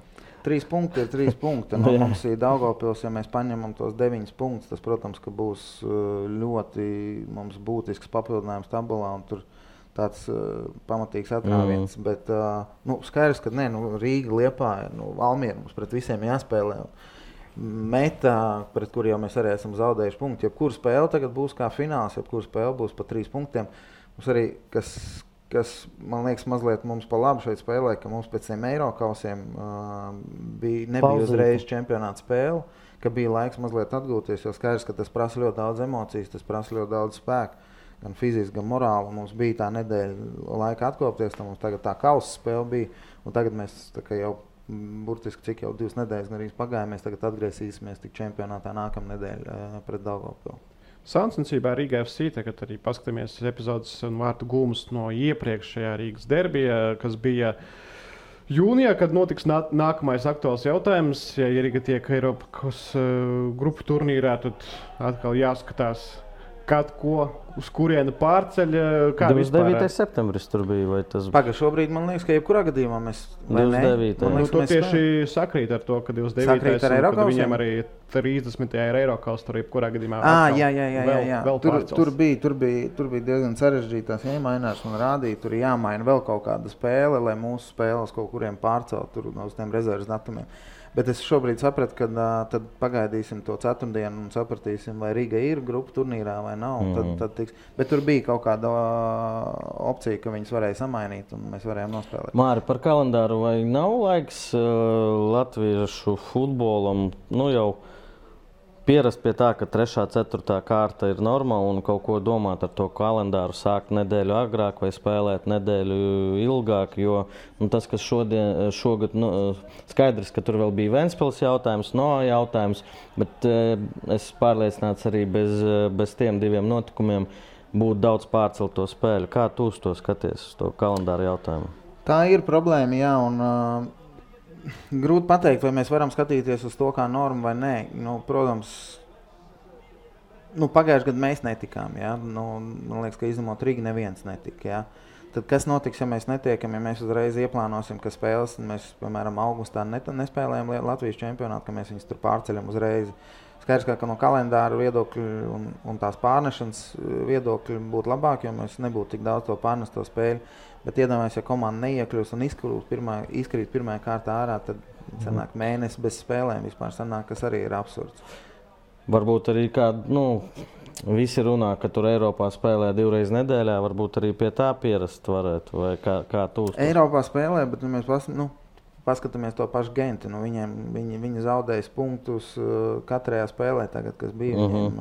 3 punkti ir 3 punkti. Mums ir Daugavpils, ja mēs paņemam tos 9 punktus, tas, protams, ka būs ļoti mums būtisks papildinājums tabulā, un tur tāds pamatīgs atrāviens. Bet skaidrs, ka Rīga, Liepāja, Valmiera mums pret visiem jāspēlē. Metā, pret kuru jau mēs arī esam zaudējuši punktu. Jebkura spēle tagad būs kā fināls, jebkura spēle būs pa 3 punktiem. Mums arī, kas man liekas mazliet mums pa labu šeit spēlē, ka mums pēc tiem Eirokausiem nebija uzreiz čempionāta spēle, ka bija laiks mazliet atgūties, jo skaidrs, ka tas prasa ļoti daudz emocijas, tas prasa ļoti daudz spēku, gan fiziski, gan morāli. Mums bija tā nedēļa laika atkopties, tad mums tagad tā kausa spēle bija, un tagad mēs tā kā jau burtiski cik jau 2 nedēļas arī pagāja, mēs tagad atgriezīsimies tik čempionātā nākamā nedēļa pret Daugavpili. Sāncensībā Rīga FC, tagad arī paskatāmies epizodes un vārtu gūmus no iepriekšējā Rīgas derbija, kas bija jūnijā, kad notiks nākamais aktuāls jautājums. Ja Rīga tiek Eiropas grupu turnīrā, tad atkal jāskatās, kad ko, uz kurienu pārceļ. 29. septembris tur bija, vai tas... Šobrīd man liekas, ka jebkurā gadījumā mēs... 29. To tieši sakrīt ar to, ka 29. kad viņiem arī 30. ir Eirokaus, tur jebkurā gadījumā jā. Tur bija diezgan sarežģītās iemainās un rādīja, tur jāmaina vēl kaut kāda spēle, lai mūsu spēles kaut kuriem pārcelt tur uz tiem rezerves datumiem. Bet es šobrīd sapratu, ka tad pagaidīsim to ceturtdienu un sapratīsim, vai Rīga ir grupu turnīrā vai nav. Tad tiks. Bet tur bija kaut kāda opcija, ka viņas varēja samainīt un mēs varējām nospēlēt. Māri, par kalendāru, vai nav laiks latviešu futbolam jau pierast pie tā, ka 3. 4. kārta ir normāla un kaut ko domāt ar to kalendāru, sākt nedēļu agrāk vai spēlēt nedēļu ilgāk, jo tas, kas šogad, skaidrs, ka tur vēl bija Ventspils jautājums, jautājums, bet es pārliecināts arī bez tiem 2 notikumiem būtu daudz pārcelto spēļu. Kā tu uz to skaties, uz to kalendāru jautājumu? Tā ir problēma, jā, un grūti pateikt, vai mēs varam skatīties uz to kā normu vai nē. Protams, pagājušajā gadā mēs netikām. Ja? Man liekas, ka izņemot Rīgu neviens netika. Ja? Tad kas notiks, ja mēs netiekam, ja mēs uzreiz ieplānosim, ka spēles, mēs, piemēram, augustā nespēlējam Latvijas čempionātu, ka mēs viņus tur pārceļam uzreiz. Skaidrs, ka no kalendāra viedokļa un tās pārnešanas viedokļa būtu labāk, jo mēs nebūtu tik daudz to pārnesto spēļu. Bet iedomājies, ja komanda neiekļūs un izkrīt pirmajā kārtā ārā, tad Sanāk mēnesi bez spēlēm vispār sanāk, kas arī ir absurds. Varbūt arī visi runā, ka tur Eiropā spēlē 2 reizes nedēļā, varbūt arī pie tā pierast varētu, vai kā tu uzskati? Eiropā spēlē, bet mēs paskatāmies to pašu Genti. Viņi zaudējas punktus katrajā spēlē, tagad, kas bija viņiem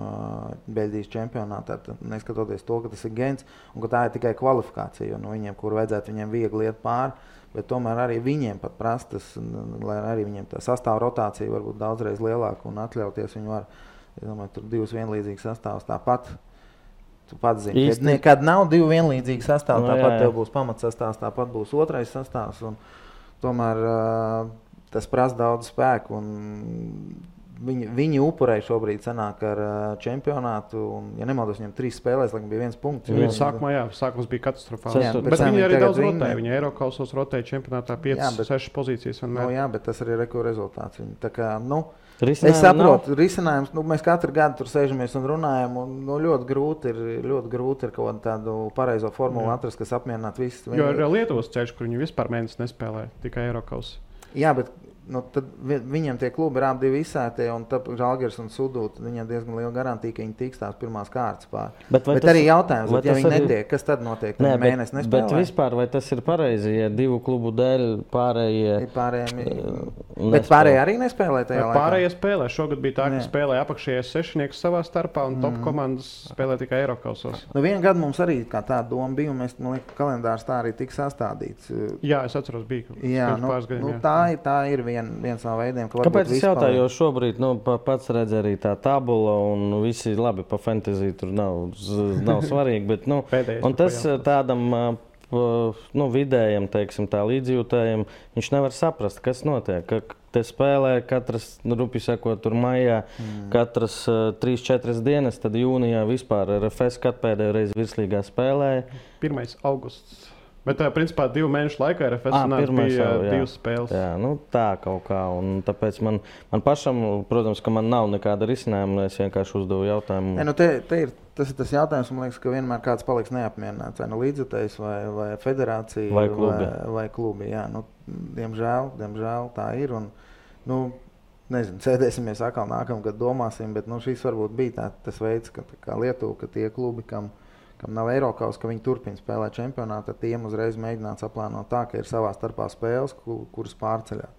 Beļģijas čempionātā. Neskatoties to, ka tas ir Gents un ka tā ir tikai kvalifikācija, jo viņiem, kur vajadzētu viņiem viegli iet pāri, bet tomēr arī viņiem pat prastas, lai arī viņiem tā sastāv rotācija varbūt daudzreiz lielāka un atļauties viņi var. Es domāju, tur 2 vienlīdzīgas sastāvs tāpat. Tu pats zini, kad nav 2 vienlīdzīgi sastāvi, tāpat tev būs pamatsastāvs, tāpat būs otrais sastāvs. Un tomēr tas prasa daudz spēku. Viņi upurēja šobrīd sanāk ar čempionātu. Un, ja nemaldos, viņam 3 spēlēs, laikam bija 1 punkts. Sākums bija katastrofāls. Bet viņi arī daudz rotēja. Viņi Eirokausos rotēja čempionātā 5-6 pozīcijas. Jā, bet tas arī ir rezultāts. Tā kā, es saprotu, risinājums. Mēs katru gadu tur sēžamies un runājam. Un, ļoti grūti ir kaut tādu pareizo formulu atrast, kas apmierinātu visus. Jo ir Lietuvas ceļš, kur viņi vispār mēnesi nespēlē, tikai Eirokaus. Jā, bet tad viņiem tie klubi ir abi izsētie, un Žalgiris un Sudūta, viņiem diezgan liela garantija, ka viņi tiks tās pirmās kārtas pār. Bet arī jautājums, ja viņi netiek, kas tad notiek? Mēnesi nespēlē? Bet vispār, vai tas ir pareizi, ja 2 klubu dēļ pārējie Bet pārējie arī nespēlē tajā laikā? Pārējie spēlē. Šogad bija tā, ka spēlē apakšējais 6 savā starpā, un top komandas spēlē tikai Eirokausos. Vienu gadu mums arī kā tā doma bija, un man liekas, kalendārs tā arī tika sastādīts. Jā, es atceros, bija pāris gadiem. Tā ir viens no veidiem, ka kāpēc es jautāju, jo šobrīd pats redz arī tā tabula un visi labi pa fantasy tur nav svarīgi, bet un tas tādam vidējam, teiksim, tā līdzjūtējam, viņš nevar saprast, kas notiek, ka te spēlē katras, rupi sakot, tur maijā, katras 3-4 dienas, tad jūnijā vispār RFS pēdējo reizi virslīgā spēlēja. 1. augusts. Bet, principā, 2 mēnešu laikā RFS bija 2 spēles. Jā, tā kaut kā. Un tāpēc man pašam, protams, ka man nav nekāda risinājuma, es vienkārši uzdevu jautājumu. Tas ir tas jautājums, man liekas, ka vienmēr kāds paliks neapmierināts. Vai līdzjutējs, vai federācija, vai klubi. Jā, diemžēl tā ir. Un, nezinu, sēdēsimies atkal nākamgad domāsim, bet šis varbūt bija tas veids, kā Lietuva, ka tie klubi, kam nav Eirokaus, ka viņi turpina spēlēt čempionātu, tad tiem uzreiz mēģināts aplānot tā, ka ir savā starpā spēles, kuras pārceļā.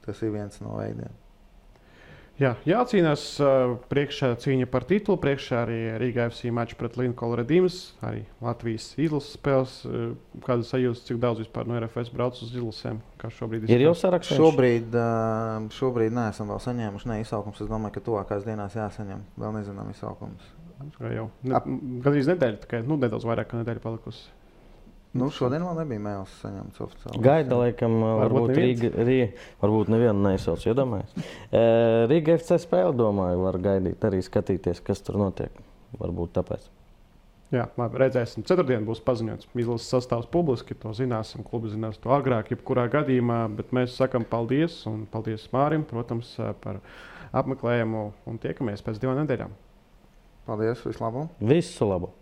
Tas ir viens no veidiem. Jā, jācīnās priekšā cīņa par titulu, priekšā arī Riga FC mačs pret Linkolu Redīmas, arī Latvijas izlases spēles. Kāda sajūta, cik daudz vispār no RFS brauc uz izlasēm? Kā šobrīd ir jau saraksts? Šobrīd neesam vēl saņēmuši izsaukums. Es domāju, ka tuvākās dienās jāsaņem. Vēl nezinām izsaukums. Gandrīz nedēļa, tikai nedaudz vairāk kā nedēļa palikusi. Šodien vēl nebija mēls saņemts oficiāli. Gaida, laikam, varbūt nevienu neizsauc, iedomājies. Riga FC spēle, domāju, var gaidīt, arī skatīties, kas tur notiek. Varbūt tāpēc. Jā, labi, redzēsim. Ceturtdien būs paziņots izlases sastāvs publiski, to zināsim, klubi zinās to agrāk, jebkurā gadījumā, bet mēs sakam paldies, un paldies Mārim, protams, par apmeklējumu, un tiekamies pēc 2 nedēļām. Paldies, visu labu! Visu labu!